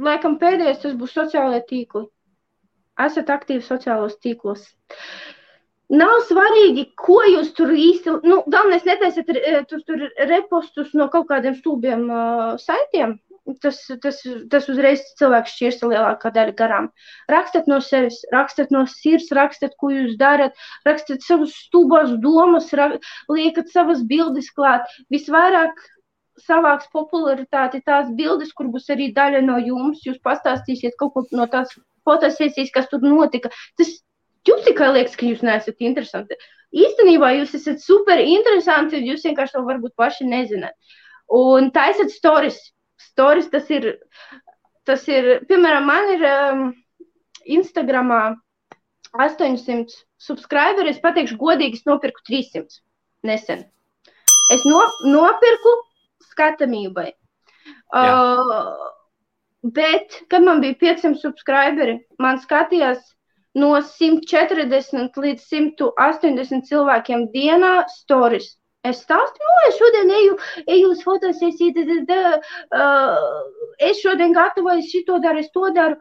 [SPEAKER 2] Laikam pēdējais tas būs sociālajie tīkli. Esat aktīvi sociālos tīklos. Nav svarīgi, ko jūs tur īsti, galvenais netaisiet tur repostus no kaut kādiem stulbiem saitiem. Tas uzreiz cilvēks šķirsta lielākā daļa garām. Rakstat no sevis, rakstat no sirds, rakstat, ko jūs darat, rakstat savus stulbās domas, liekat savas bildes klāt. Visvairāk savāks popularitāti tās bildes, kur būs arī daļa no jums. Jūs pastāstīsiet kaut ko no tās fotosesijas, kas tur notika. Jums tikai liekas, ka jūs neesat interesanti. Īstenībā jūs esat super interesanti, jūs vienkārši to varbūt paši nezināt. Un taisat stories. Stories tas ir, piemēram, man ir Instagramā 800 subscriberi, es pateikšu godīgi, es nopirku 300 nesen. Es nopirku skatamībai. Bet, kad man bija 500 subscriberi, man skatījās no 140 līdz 180 cilvēkiem dienā stories. Es stāstu, es šodien eju uz fotosesiju, es šodien gatavoju, šito daru, es to daru.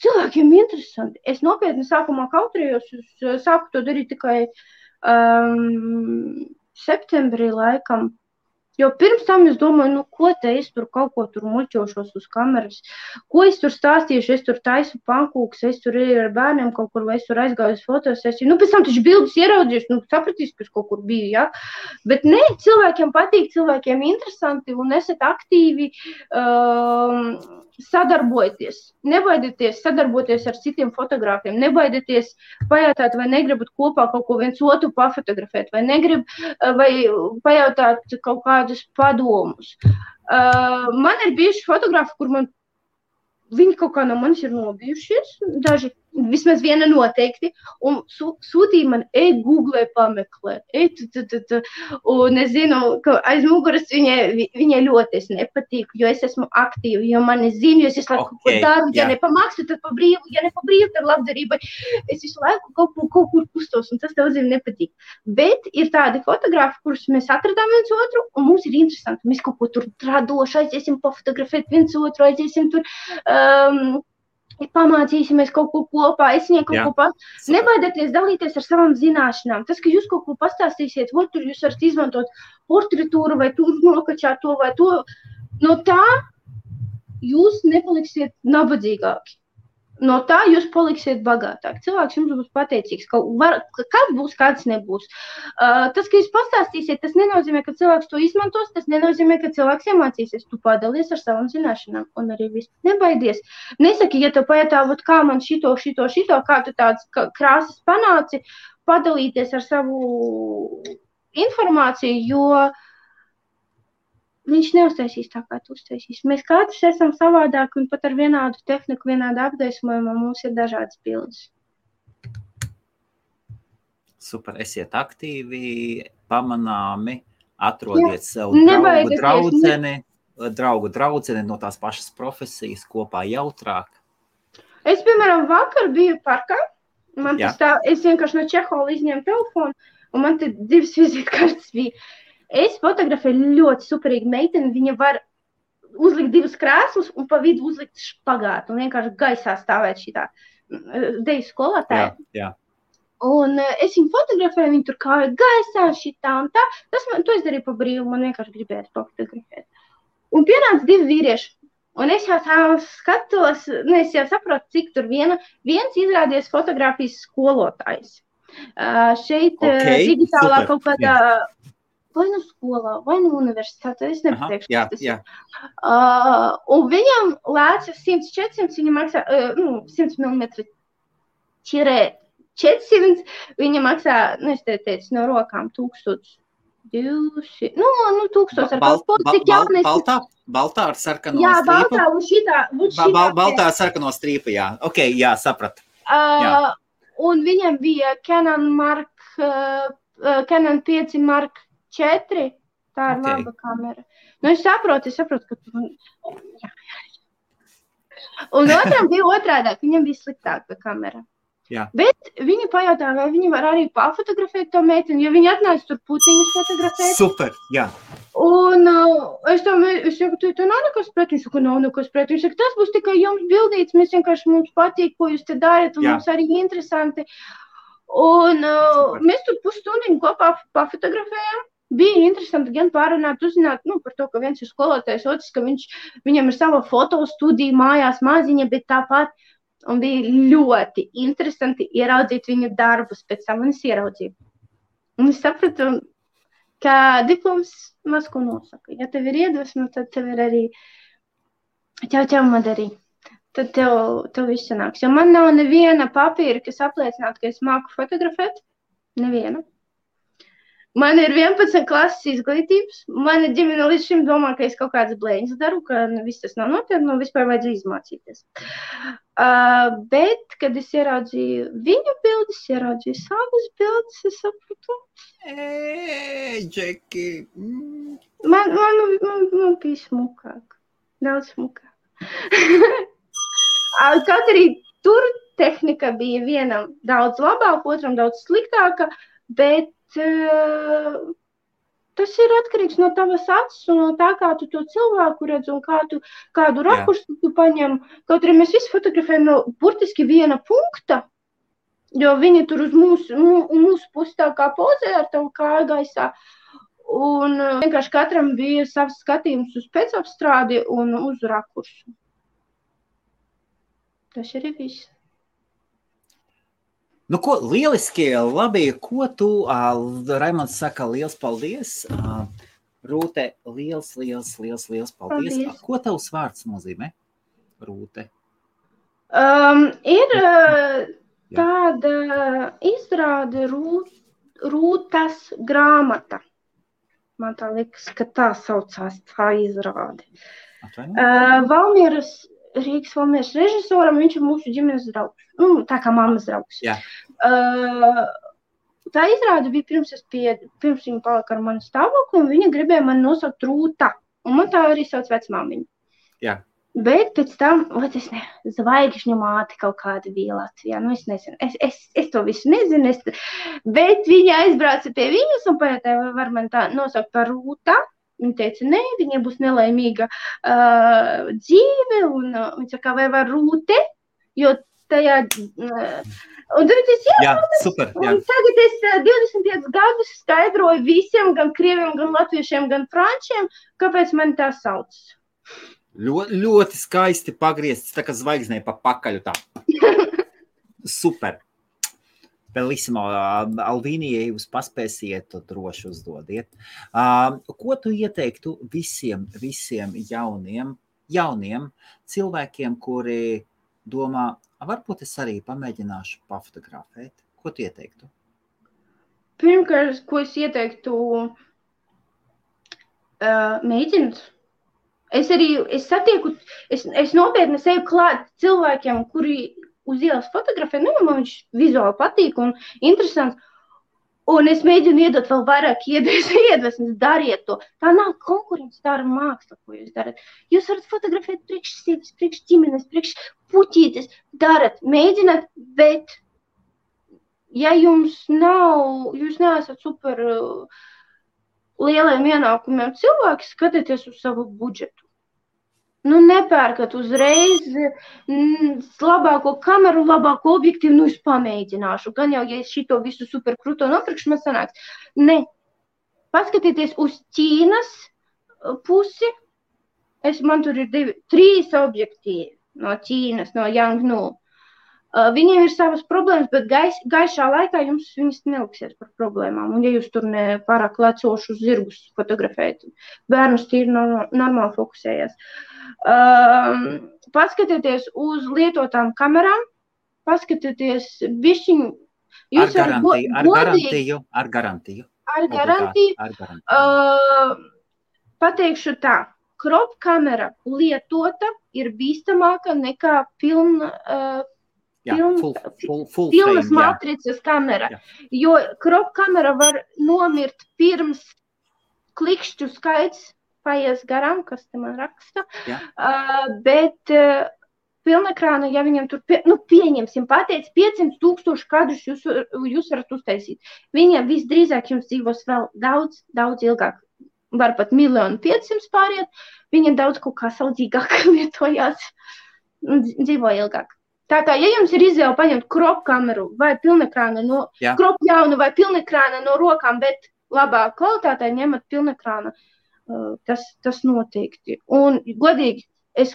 [SPEAKER 2] cilvēkiem interesanti. Es nopietni sākumā kautrējos, es sāku to darīt tikai septembrī laikam. Jo pirms tam es domāju, ko te es tur kaut ko tur muļķošos uz kameras, ko es tur stāstīšu, es tur taisu pankūks, es tur ar bērniem kaut kur, vai es tur aizgāju uz fotosesiju. Pēc tam taču bildes ieraudzījis, sapratīs, ka es kaut kur biju, ja? Bet ne, cilvēkiem patīk, cilvēkiem interesanti un esat aktīvi sadarbojoties. Nebaidieties sadarboties ar citiem fotogrāfiem, nebaidieties pajautāt, vai negribat kopā kaut ko viens otru pafotografēt, vai pajautāt kaut kādus padomus. Man ir bijuši fotografi, kur viņi kaut kā no manis ir nobijušies, daži, vismaz viena noteikti, un sūtīja man, Google pameklē, un es zinu, ka aiz muguras viņai ļoti es nepatīku, jo es esmu aktīva, jo mani zinu, jo es visu laiku kaut ko daru, ja nepamaksu, tad pa brīvu, ja nepabrīvu, tad labdarībai, es visu laiku kaut kur kustos, un tas daudziem nepatīk. Bet ir tādi fotografi, kurus mēs atradām viens otru, un mums ir interesanti, mēs kaut ko tur radoši aiziesim pafotografēt viens otru, aiziesim tur, pamācīsimies kaut ko kopā, es viņai kaut ko pat. Nebaidieties dalīties ar savām zināšanām. Tas, ka jūs kaut ko pastāstīsiet, tur jūs varat izmantot portretūru vai tur nokačāt to vai to, no tā jūs nepaliksiet nabadzīgāki. No tā jūs paliksiet bagātāki. Cilvēks jums būs pateicīgs. Kāds būs, kāds nebūs. Tas, ka jūs pastāstīsiet, tas nenozīmē, ka cilvēks to izmantos, tas nenozīmē, ka cilvēks iemācīsies. Tu padalies ar savām zināšanām un arī viss. Nebaidies. Nesaki, ja tev pajautā, kā man šito, kā tu tādas krāsas panāci, padalīties ar savu informāciju, jo viņš neuztaisīs tā, kā tu uztaisīs. Mēs katrs esam savādāki un pat ar vienādu tehniku, vienādu apgaismojumu, mums ir dažādas bildes.
[SPEAKER 1] Super, esiet aktīvi, pamanāmi, atrodiet sev draugu draudzeni no tās pašas profesijas kopā jautrāk.
[SPEAKER 2] Es, piemēram, vakar biju parkā, es vienkārši no Čehola izņēmu telefonu, un man te 2 vizītkartes bija. Es fotografēju ļoti superīgu meiteni, viņa var uzlikt 2 krēslus un pa vidu uzlikt špagātu un vienkārši gaisā stāvēt šitā deju skolotāja.
[SPEAKER 1] Jā.
[SPEAKER 2] Un es viņu fotografēju, viņa tur kāja gaisā šitā un tā. To es darīju pa brīvu, man vienkārši gribētu fotografēt. Un pienāca 2 vīrieši. Un es jau tā skatos, es jau saprotu, cik tur viens izrādies fotografijas skolotājs. Šeit digitālā kaut kādā... Vai nu skolā, vai nu universitātē, es nepateikšu, kas tas ir. Un viņam lēca 100-400, viņa maksā 100 mm čirē 400, viņa maksā, es te teicu, no rokām 1200, 1000 ar kaut ko, cik jaunais.
[SPEAKER 1] Baltā ar sarkano strīpu?
[SPEAKER 2] Jā, baltā un šitā.
[SPEAKER 1] Baltā ar sarkano strīpu, jā. Ok, jā, sapratu.
[SPEAKER 2] Un viņam bija Canon 5 Mark 4, tā ir laba kamera. Es saprotu, ka tu... Un otram bija otrādāk, viņam bija sliktāka kamera.
[SPEAKER 1] Jā.
[SPEAKER 2] Bet viņi pajautā, vai viņi var arī pafotografēt to meiteni, jo viņi atnāca tur puciņus fotografēt.
[SPEAKER 1] Super, jā.
[SPEAKER 2] Un es saku, tu nav nekas pret, viņš saka, nav nekas pret. Viņš saka, tas būs tikai jums bildīts, mums patīk, ko jūs te darat, un mums arī interesanti. Un mēs tur pusstundiņu kopā pafotografējām. Bija interesanti gan pārunāt, uzzināt par to, ka viens ir skolotājs, otrs, ka viņam ir sava fotostudija mājās maziņa, bet tāpat. Un bija ļoti interesanti ieraudzīt viņu darbus, pēc tam es ieraudzīju. Un es sapratu, ka diploms maz ko nosaka. Ja tev ir iedvesma, tad tev ir arī ķau darī. Tad tev viss sanāks. Jo man nav neviena papīra, kas apliecinātu, ka es māku fotografēt. Neviena. Man ir 11 klases izglītības. Mana ģimene līdz šim domā, ka es kaut kādas blēņas daru, ka viss tas nav nopietni, vispār vajadzēja izmācīties. Bet, kad es ieraudzīju viņu bildes, ieraudzīju savas bildes, es sapratu.
[SPEAKER 1] Džeki.
[SPEAKER 2] Man bija smukāk. Daudz smukāk. Kaut arī tur tehnika bija vienam daudz labāka, otram daudz sliktāka, bet Tas ir atkarīgs no tavas acis un no tā, kā tu to cilvēku redz un kādu rakursu tu paņem. Kaut arī mēs visi fotografējam no burtiski viena punkta, jo viņi tur uz mūsu pusi tā kā pozē ar tavu kāju gaisā. Un vienkārši katram bija savs skatījums uz pēcapstrādi un uz rakursu. Tas arī viss.
[SPEAKER 1] Nu, ko, lieliski, labi, ko tu, Raimonds saka, liels paldies. Rūte, liels paldies.
[SPEAKER 2] Paldies.
[SPEAKER 1] Ko tavs vārds nozīmē, Rūte?
[SPEAKER 2] Ir tāda izrāde Rūtas grāmata. Man tā liekas, ka tā saucās tā izrāde. Rīgas Valmieras režisoram, viņš ir mūsu ģimenes draugs. Tā kā mammas draugs.
[SPEAKER 1] Jā.
[SPEAKER 2] Tā izrāde bija pirms viņa palika ar mani stāvokli, un viņa gribēja mani nosaukt Rūta. Un man tā arī sauc vecmāmiņa.
[SPEAKER 1] Jā.
[SPEAKER 2] Bet pēc tam, zvaigžņu māte kaut kāda bija Latvijā. Es nezinu, es to visu nezinu, bet viņa aizbrauca pie viņas un pajautāja, var man tā nosaukt par Rūta. Viņa teica, nē, viņai būs nelaimīga dzīve, un viņa saka, vai var Rūte, jo tajā... Un tad es
[SPEAKER 1] super, jā.
[SPEAKER 2] Un tagad es 25 gadus skaidroju visiem, gan krieviem, gan latviešiem, gan frančiem, kāpēc man tā sauc.
[SPEAKER 1] Ļoti skaisti pagriezts, tā kā zvaigznē pa pakaļu tā. Super. Bellissimo, Alvīnija, jūs paspēsiet, to droši uzdodiet. Ko tu ieteiktu visiem jauniem cilvēkiem, kuri domā, varbūt es arī pamēģināšu pafotografēt? Ko tu ieteiktu?
[SPEAKER 2] Pirmkārt, ko es ieteiktu, mēģināt. Es nopietni seju klāt cilvēkiem, kuri uz ielas fotografē, man viņš vizuāli patīk un interesants, un es mēģinu iedot vēl vairāk iedvesmas, dariet to. Tā nav konkurence, tā ir māksla, ko jūs darat. Jūs varat fotografēt priekš sevis, priekš ģimenes, priekš puķītes, darat, mēģināt, bet ja jūs neesat super lieliem ienākumiem cilvēki, skatieties uz savu budžetu. Nepērkat uzreiz labāko kameru, labāko objektīvu, es pamēģināšu. Gan jau, ja es šito visu super kruto nopirkšu, man sanāks. Ne. Paskatieties uz Ķīnas pusi. Man tur ir 3 objektīvi no Ķīnas, no Yangnu. Viņiem ir savas problēmas, bet gaišā laikā jums viņas neliksies par problēmām. Un ja jūs tur ne pārāk lecošus zirgus fotografējat, bērnus tīri normāli fokusējas. Paskatieties uz lietotām kamerām, paskatieties bišķiņu.
[SPEAKER 1] Ar garantiju.
[SPEAKER 2] Pateikšu tā, crop kamera lietota ir bīstamāka nekā pilnas matricas kamera, jo crop kamera var nomirt pirms klikšķu skaits paies garām, kas te man raksta, bet pilnekrāna, ja viņam tur, pieņemsim, pateic 500,000 kadrus jūs varat uztaisīt. Viņam visdrīzāk jums dzīvos vēl daudz ilgāk, var pat 1,500,000 pāriet, viņa daudz kaut kā saudzīgāk lietojās un dzīvo ilgāk. Tātad, ja jums ir izvēle paņemt crop kameru vai pilnekrāna crop jaunu vai pilnekrāna no rokām, bet labā kvalitātē ņemat pilnekrāna, tas noteikti. Un es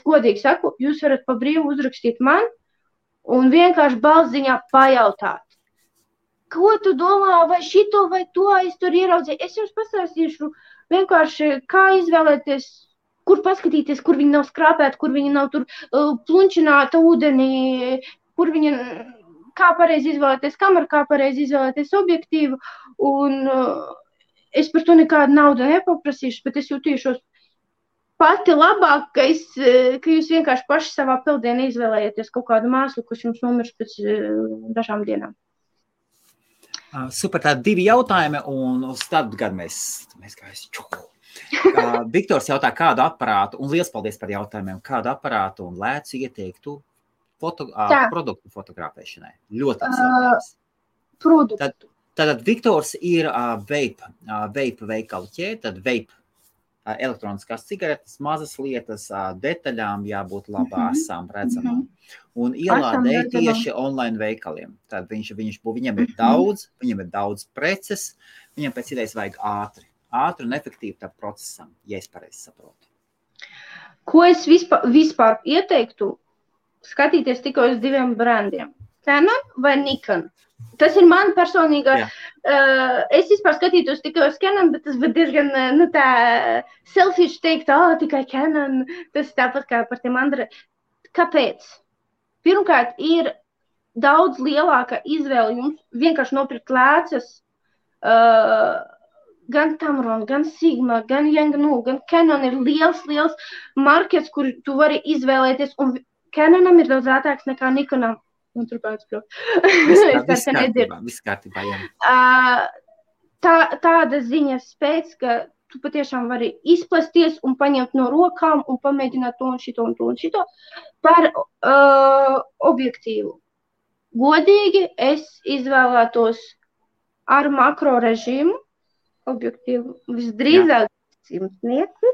[SPEAKER 2] godīgi saku, jūs varat pa brīvu uzrakstīt man un vienkārši balsziņā pajautāt. Ko tu domā, vai šito vai to es tur ieraudzīju? Es jums pastāstīšu vienkārši, kā izvēlēties, kur paskatīties, kur viņi nav skrāpēti, kur viņi nav tur plunčināta ūdenī, kā pareizi izvēlēties kameru, kā pareizi izvēlēties objektīvu. Un es par to nekādu naudu nepaprasīšu, bet es jutīšos pati labāk, ka jūs vienkārši paši savā peldienā izvēlējieties kaut kādu māslu, kas jums nomirs pēc dažām dienām.
[SPEAKER 1] Super, tādi 2 jautājumi, un uz tādu gadu mēs gājuši. Viktors jautā, kādu aparātu, un liels paldies par jautājumiem, kādu aparātu un lēcu ieteiktu produktu fotografēšanai. Ļoti apsvērtības.
[SPEAKER 2] Produktu.
[SPEAKER 1] Tātad Viktors ir vape veikalu ķēde, tad vape elektroniskās cigaretes, mazas lietas, detaļām jābūt labām, redzamām. Un ielādē tieši online veikaliem. Tad viņam ir daudz preces, viņam pēc idejas vajag ātri un efektīvi tam procesam, ja es pareizi saprotu.
[SPEAKER 2] Ko es vispār ieteiktu skatīties tikai uz 2 brandiem? Canon vai Nikon? Tas ir man personīgā. Es vispār skatītos tikai uz Canon, bet tas bija diezgan tā selfish teikt, tikai Canon. Tas tāpat kā par tiem Andrei. Kāpēc? Pirmkārt, ir daudz lielāka izvēle jums vienkārši nopirkt lēcas, gan Tamron, gan Sigma, gan Yangnu, gan Canon ir liels markets, kur tu vari izvēlēties, un Canonam ir daudz ātrāks nekā Nikonam. Un turpēc,
[SPEAKER 1] viss kārtībā, jā.
[SPEAKER 2] Tāda ziņas pēc, ka tu patiešām vari izplasties un paņemt no rokām un pamēģināt to un šito par objektīvu. Godīgi es izvēlētos ar makro režīmu objektīvu visdrīzāk 100 metri,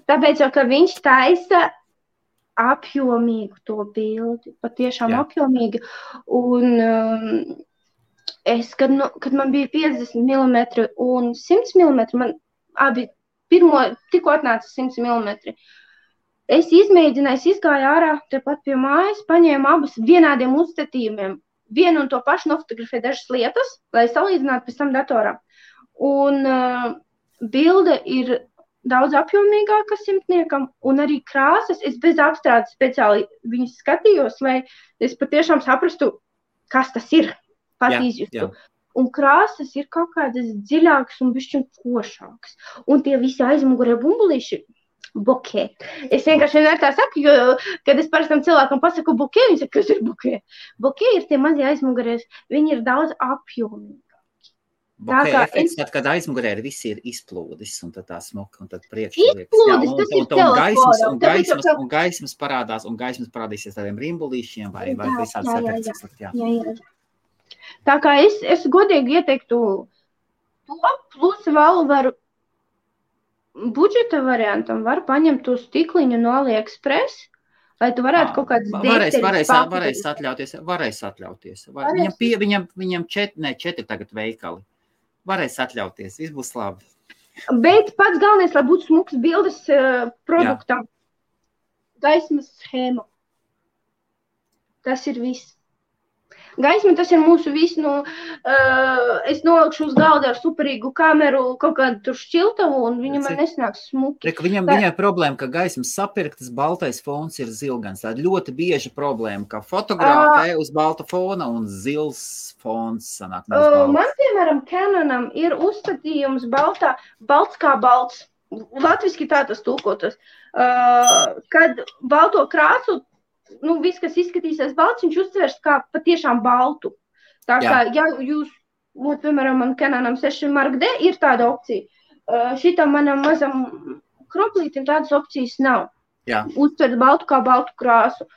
[SPEAKER 2] tāpēc jau, ka viņš taisa apjomīgu to bildi, patiešām apjomīgi. Un kad man bija 50 mm un 100 mm, man abi tikko atnāca 100 mm. Es izmēģināju, izgāju ārā, tepat pie mājas, paņēmu abus vienādiem uzstatījumiem. Vienu un to pašu nofotografēju dažas lietas, lai salīdzinātu pēc tam datorā. Un bilde ir daudz apjomīgāka simtniekam, un arī krāsas, es bez apstrādes speciāli viņas skatījos, lai es patiešām saprastu, kas tas ir, pat izjustu. Un krāsas ir kaut kādas dziļākas un bišķiņ košākas. Un tie visi aizmugurē bumbulīši, bokē. Es vienkārši vienmēr tā saku, jo, kad es parastam cilvēkam pasaku bokē, viņi saka, kas ir bokē? Bokē ir tie mazie aizmugurēs, viņi ir daudz apjomīgi.
[SPEAKER 1] Bokeh efekts, tad, kad aizmugurē viss ir izplūdis, un tad tā smuka, un tad priekšā liekas. Un gaismas parādās, un gaismas parādīsies tādiem rimbulīšiem vai visādas efekts. Jā.
[SPEAKER 2] Tā kā es godīgi ieteiktu to, plus vēl varu budžeta variantam, var paņemt to stikliņu no AliExpress, lai tu varētu kaut kādas
[SPEAKER 1] varēs atļauties. Viņam 4 tagad veikali. Varēs atļauties, viss būs labi.
[SPEAKER 2] Bet pats galvenais, lai būtu smuks bildes produktam. Gaismas schēma. Tas ir viss. Gaisma, tas ir mūsu viss, es nolikšu uz galda ar superīgu kameru, kaut kādu tur šķiltavu, un viņa man nesnāks smuki.
[SPEAKER 1] Viņam ir problēma, ka gaismas sapirktas, baltais fons ir zilgans. Tā ļoti bieža problēma, ka fotografē uz balta fona un zils fons sanāk.
[SPEAKER 2] Man, piemēram, Canonam ir uzstatījums balts kā balts. Latviski tā tas tulkotas. Kad balto krāsu, viss, kas izskatīsies balts, viņš uztvers kā patiešām baltu. Tā kā, ja jūs, piemēram, man Canonam 6 Mark D ir tāda opcija, šitam manam mazam kroplītim tādas opcijas nav. Uztvert baltu kā baltu krāsu.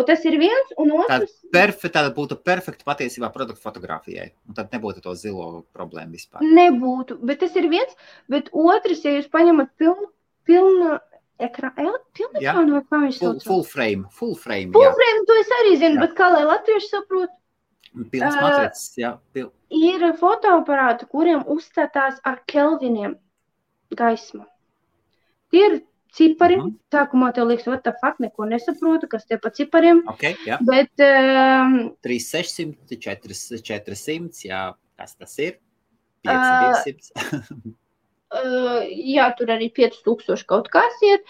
[SPEAKER 2] Tas ir viens, un otrs...
[SPEAKER 1] Tāda būtu perfekta patiesībā produktu fotografijai, un tad nebūtu to zilo problēmu vispār.
[SPEAKER 2] Nebūtu, bet tas ir viens, bet otrs, ja jūs paņemat pilnu ekrānu, vai kā viņš sauc?
[SPEAKER 1] Full frame. Full frame,
[SPEAKER 2] to es arī zinu, bet kā lai latvieši saprot?
[SPEAKER 1] Pilns matricis, jā.
[SPEAKER 2] Ir fotoaparāti, kuriem uzstatās ar kelviniem gaisma. Tie ir cipari. Sākumā tev liekas, what the fuck, neko nesaprotu, kas tie pa cipariem. Bet...
[SPEAKER 1] 3600, 400, jā, kas tas ir? 5200.
[SPEAKER 2] Jā, tur arī 5000 kaut kas iet.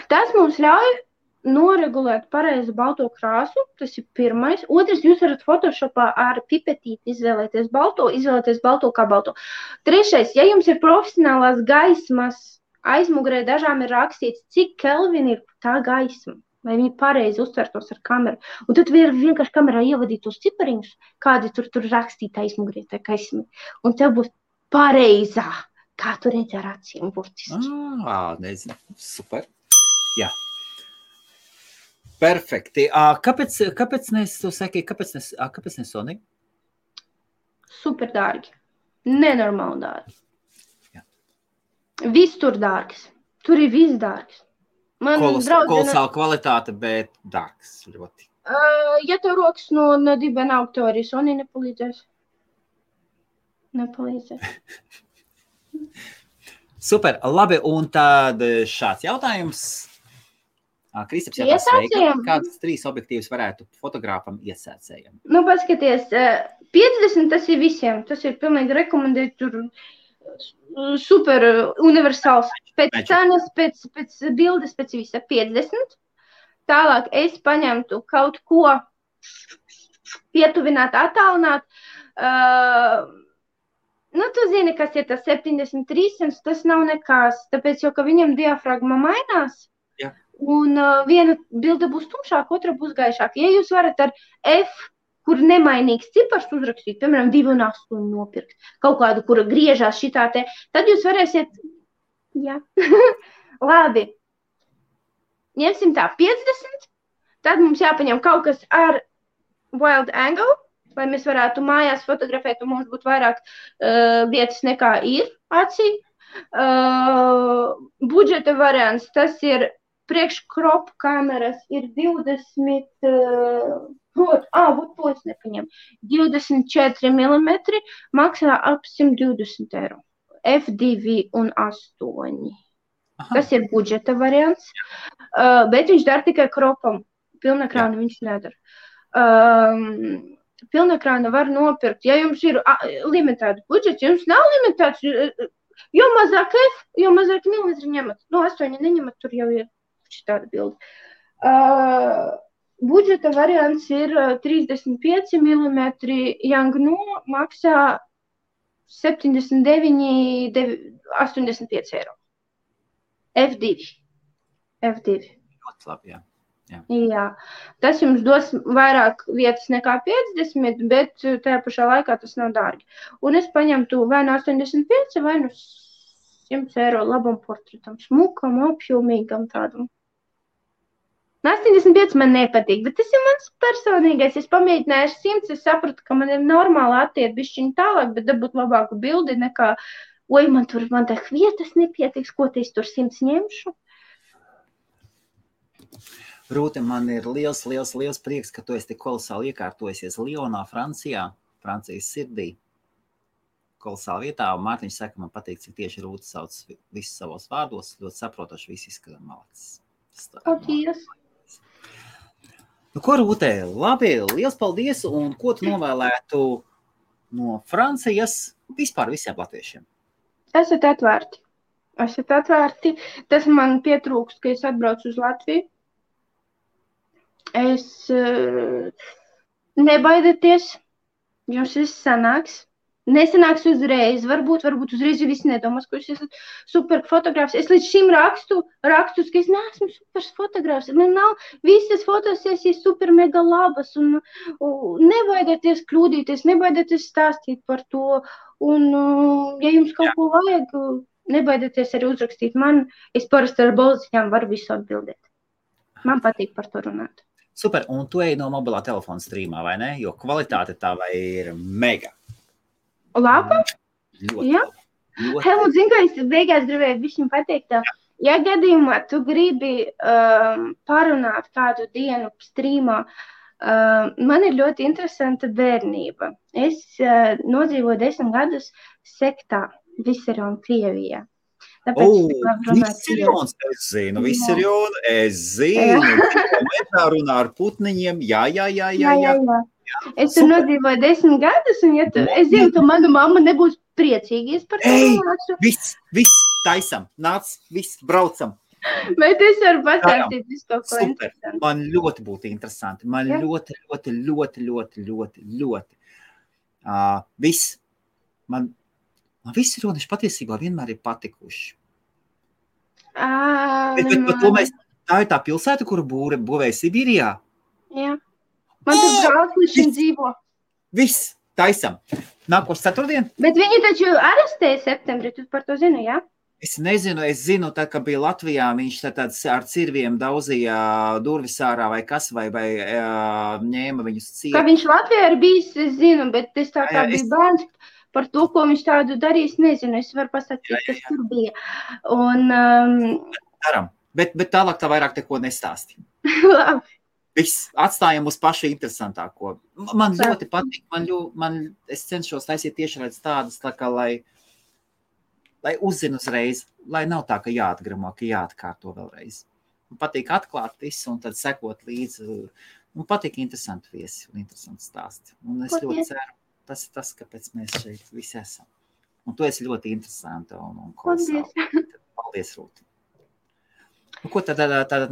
[SPEAKER 2] Tas mums ļauj noregulēt pareizi balto krāsu, tas ir pirmais. Otrs, jūs varat Photoshopā ar pipetīti izvēlēties balto kā balto. Trešais, ja jums ir profesionālās gaismas, aizmugurē dažām ir rakstīts, cik kelvini ir tā gaisma, lai viņi pareizi uztvertos ar kameru. Un tad vienkārši kamerā ievadīt tos cipariņus, kādi tur rakstīt aizmugurē tā gaisma. Un tev būs pareizā, kā tu redzi ar acīm burtiski.
[SPEAKER 1] Nezinu, super. Jā. Perfekti. Kāpēc ne Sony?
[SPEAKER 2] super dārgi. Nenormāli dārgi.
[SPEAKER 1] Jā.
[SPEAKER 2] Viss tur dārgs. Tur ir viss dārgs. Man
[SPEAKER 1] Kolosāla kvalitāte, bet dārgs ļoti.
[SPEAKER 2] Ja tev rokas no dibena augtorijas, un nepalīdzēs.
[SPEAKER 1] Super, labi, un tad šāds jautājums. Kristaps jautās, sveika, kādas 3 objektīvas varētu fotogrāfam iesācējam?
[SPEAKER 2] Nu, paskaties, 50 tas ir visiem, tas ir pilnīgi rekomendēt, tur super universāls, pēc cenas, pēc bildes, pēc visa 50. Tālāk es paņemtu kaut ko pietuvināt, attālināt. Nu, tu zini, kas ir tas 73, tas nav nekas, tāpēc jau, ka viņam diafragma mainās.
[SPEAKER 1] Jā.
[SPEAKER 2] Un viena bilde būs tumšāka, otra būs gaišāka. Ja jūs varat ar F, kur nemainīgs cipars uzrakstīt, piemēram, 2,8 nopirkt, kaut kādu, kura griežās šitā te, tad jūs varēsiet, jā, labi. Ņemsim tā 50, tad mums jāpaņem kaut kas ar wild angle, lai mēs varētu mājās fotografēt, un mums būtu vairāk vietas nekā ir acī. Budžeta variants, tas ir priekškrop kameras, ir 20, to es nepaņem, 24 mm, maksā ap 120 eiro. F2 un 8. Aha. Tas ir budžeta variants, bet viņš dara tikai kropam. Pilnekrānu viņš nedara. Pilnekrānu var nopirkt. Ja jums ir limitēts budžets, ja jums nav limitēts, jo mazāk F, jo mazāk milimetri ņemat. No 8 neņemat, tur jau ir šitāda bilde. Budžeta variants ir 35 mm, Yangnu maksā 79, 85 eiro. F2.
[SPEAKER 1] Ļoti labi, jā.
[SPEAKER 2] Jā. Tas jums dos vairāk vietas nekā 50, bet tajā pašā laikā tas nav dārgi. Un es paņemtu vai no 85, vai no 100 eiro labam portretam, smukam, apjomīgam tādam. 85 man nepatīk, bet tas ir mans personīgais. Es pamēģināju 100, es sapratu, ka man ir normāli attiet bišķiņ tālāk, bet dabūt labāku bildi nekā man tā vietas nepietiks, ko te es tur 100 ņemšu.
[SPEAKER 1] Rūte, man ir liels prieks, ka tu esi tik kolosāli iekārtojusies Lionā, Francijā, Francijas sirdī. Kolosāli vietā, un Mārtiņš saka, man patīk, cik tieši Rūte sauc visus savos vārdos, ļoti saprotoši visi izskatā malacis.
[SPEAKER 2] Paldies!
[SPEAKER 1] Nu, ko, Rūte, labi, liels paldies, un ko tu novēlētu no Francijas vispār visiem latviešiem?
[SPEAKER 2] Esat atvērti. Tas man pietrūkst, ka es atbraucu uz Latviju. Nebaidieties, jums viss sanāks. Nesanāks uzreiz, varbūt uzreiz jau visi nedomās, ka jūs esat super fotogrāfs. Es līdz šim rakstus, ka es neesmu super fotogrāfs. Man nav visas fotosesijas super mega labas, un nebaidieties kļūdīties, nebaidieties stāstīt par to. Un, ja jums kaut ko vajag, nebaidieties arī uzrakstīt man. Es parasti ar balziņām varu visu atbildēt. Man patīk par to runāt.
[SPEAKER 1] Super, un tu ej no mobilā telefona streamā, vai ne? Jo kvalitāte tava ir mega.
[SPEAKER 2] Laba? Jā. Helmut, zinu, ka es beigās gribēju višķiņ pateikt, ja gadījumā tu gribi parunāt kādu dienu streamā, man ir ļoti interesanta bērnība. Es nodzīvoju 10 gadus sektā Viserion, Krievijā.
[SPEAKER 1] Viserions, es zinu, es zinu, runā ar putniņiem, jā.
[SPEAKER 2] Es tur nodzīvoju 10 gadus, un es zinu, ka mana mamma nebūs priecīga, es par to nācu.
[SPEAKER 1] Viss, taisam, nāc, viss, braucam.
[SPEAKER 2] Bet es varu pastāstīt visu kaut ko
[SPEAKER 1] super, interesanti. Man ļoti būtu interesanti, man ļoti. Viss, man visi rodeši patiesībā vienmēr ir patikuši. Tā ir tā pilsēta, kuru būvēja Sibīrijā?
[SPEAKER 2] Jā. Man tur brālis līdz šim dzīvo.
[SPEAKER 1] Viss, taisam. Nākošais ceturtdien?
[SPEAKER 2] Bet viņi taču arestēja septembrī, tu par to zini, jā?
[SPEAKER 1] Es nezinu, es zinu, tā, ka bija Latvijā, viņš tāds ar cirviem daudzīja durvis ārā vai kas, vai ņēma viņus ciet.
[SPEAKER 2] Kā viņš Latvijā ir bijis, es zinu, bet es tā kā biju bērns, par to, ko viņš tādu darīs, nezinu. Es varu pasakīt, kas tur bija. Un,
[SPEAKER 1] Daram, bet tālāk tā vairāk neko nestāsti.
[SPEAKER 2] Labi.
[SPEAKER 1] Viss, atstājam uz pašu interesantāko. Man ļoti patīk, es cenšos taisīt tiešraidz tādas, tā kā, lai uzzinu uzreiz, lai nav tā, ka jāatgramo, ka jāatkārto vēlreiz. Man patīk atklāt visu un tad sekot līdzi. Man patīk interesanti viesi un interesanti stāsti. Un es ļoti ceru, tas ir tas, kāpēc mēs šeit visi esam. Un tu esi ļoti interesanta un kolosāli. Paldies, Rūti. Nu, ko tad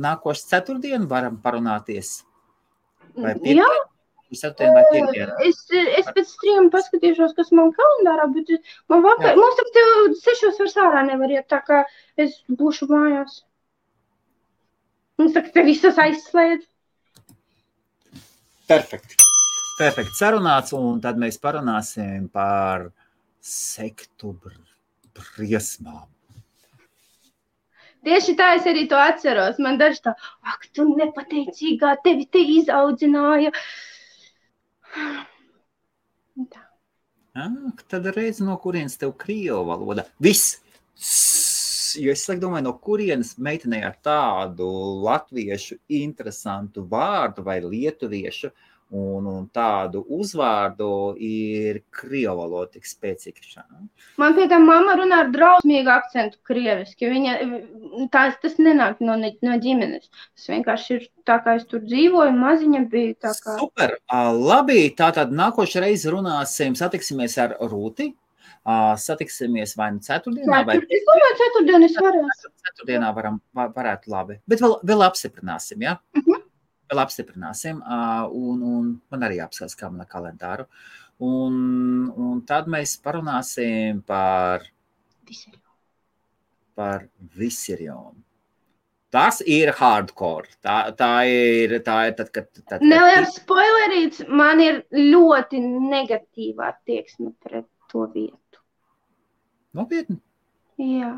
[SPEAKER 1] nākošais ceturtdienu varam parunāties? Vai
[SPEAKER 2] Jā.
[SPEAKER 1] Ceturtdien vai piekdienu?
[SPEAKER 2] Es pēc streama paskatīšos, kas man kalendārā, bet man vakar, mums ap tev 6 vairs ārā nevar iet, tā kā es būšu mājās. Mums tā, ka te visas aizslēdz.
[SPEAKER 1] Perfekti. Sarunāts, un tad mēs parunāsim par sektu briesmām.
[SPEAKER 2] Tieši tā es arī to atceros. Man daži tā, ak, tu nepateicīgā, tevi te izaudzināja. Tā.
[SPEAKER 1] Tad reiz no kurienes tev krievu valoda. Viss! Jo es domāju, no kurienes meitenei ar tādu latviešu interesantu vārdu vai lietuviešu un tādu uzvārdu ir krievu valoda tik spēcīga.
[SPEAKER 2] Man pie tā mamma runā ar drausmīgu akcentu krieviski. Tas nenāk no ģimenes. Tas vienkārši ir tā, kā es tur dzīvoju, maziņa bija tā kā.
[SPEAKER 1] Super! Labi, tātad nākošais reizi satiksimies ar Rūti. Satiksimies vai nu ceturtdienā, vai...
[SPEAKER 2] Es domāju, ceturtdienu es varētu.
[SPEAKER 1] Ceturtdienā varētu labi. Bet vēl apstiprināsim, ja? Vēl apstiprināsim, un man arī apskatās, kā mana kalendāru. Un tad mēs parunāsim par Viserionu. Tas ir hardcore. Tā ir tad, kad...
[SPEAKER 2] Neliels spoilerīts, man ir ļoti negatīvā attieksme pret to vietu.
[SPEAKER 1] Nopietni?
[SPEAKER 2] Jā.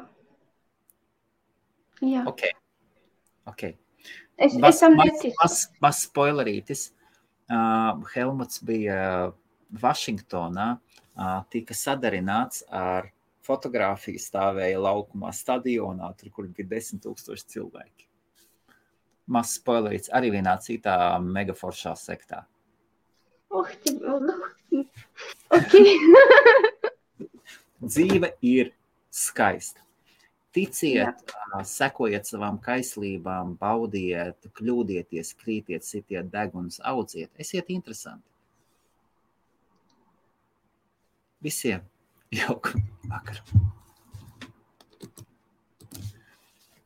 [SPEAKER 1] Ok.
[SPEAKER 2] Es tam neticu.
[SPEAKER 1] Mas spoilerītis. Helmuts bija Vašingtonā, tika sadarināts ar fotogrāfiju, stāvēja laukumā stadionā, tur, kur bija 10,000 cilvēki. Mas spoilerītis arī vienā citā megaforšā sektā.
[SPEAKER 2] Ok.
[SPEAKER 1] Dzīve ir skaista. Ticiet, sekojiet savām kaislībām, baudiet, kļūdieties, krītiet, sitiet deguns, audziet. Esiet interesanti. Visiem jauku vakaru.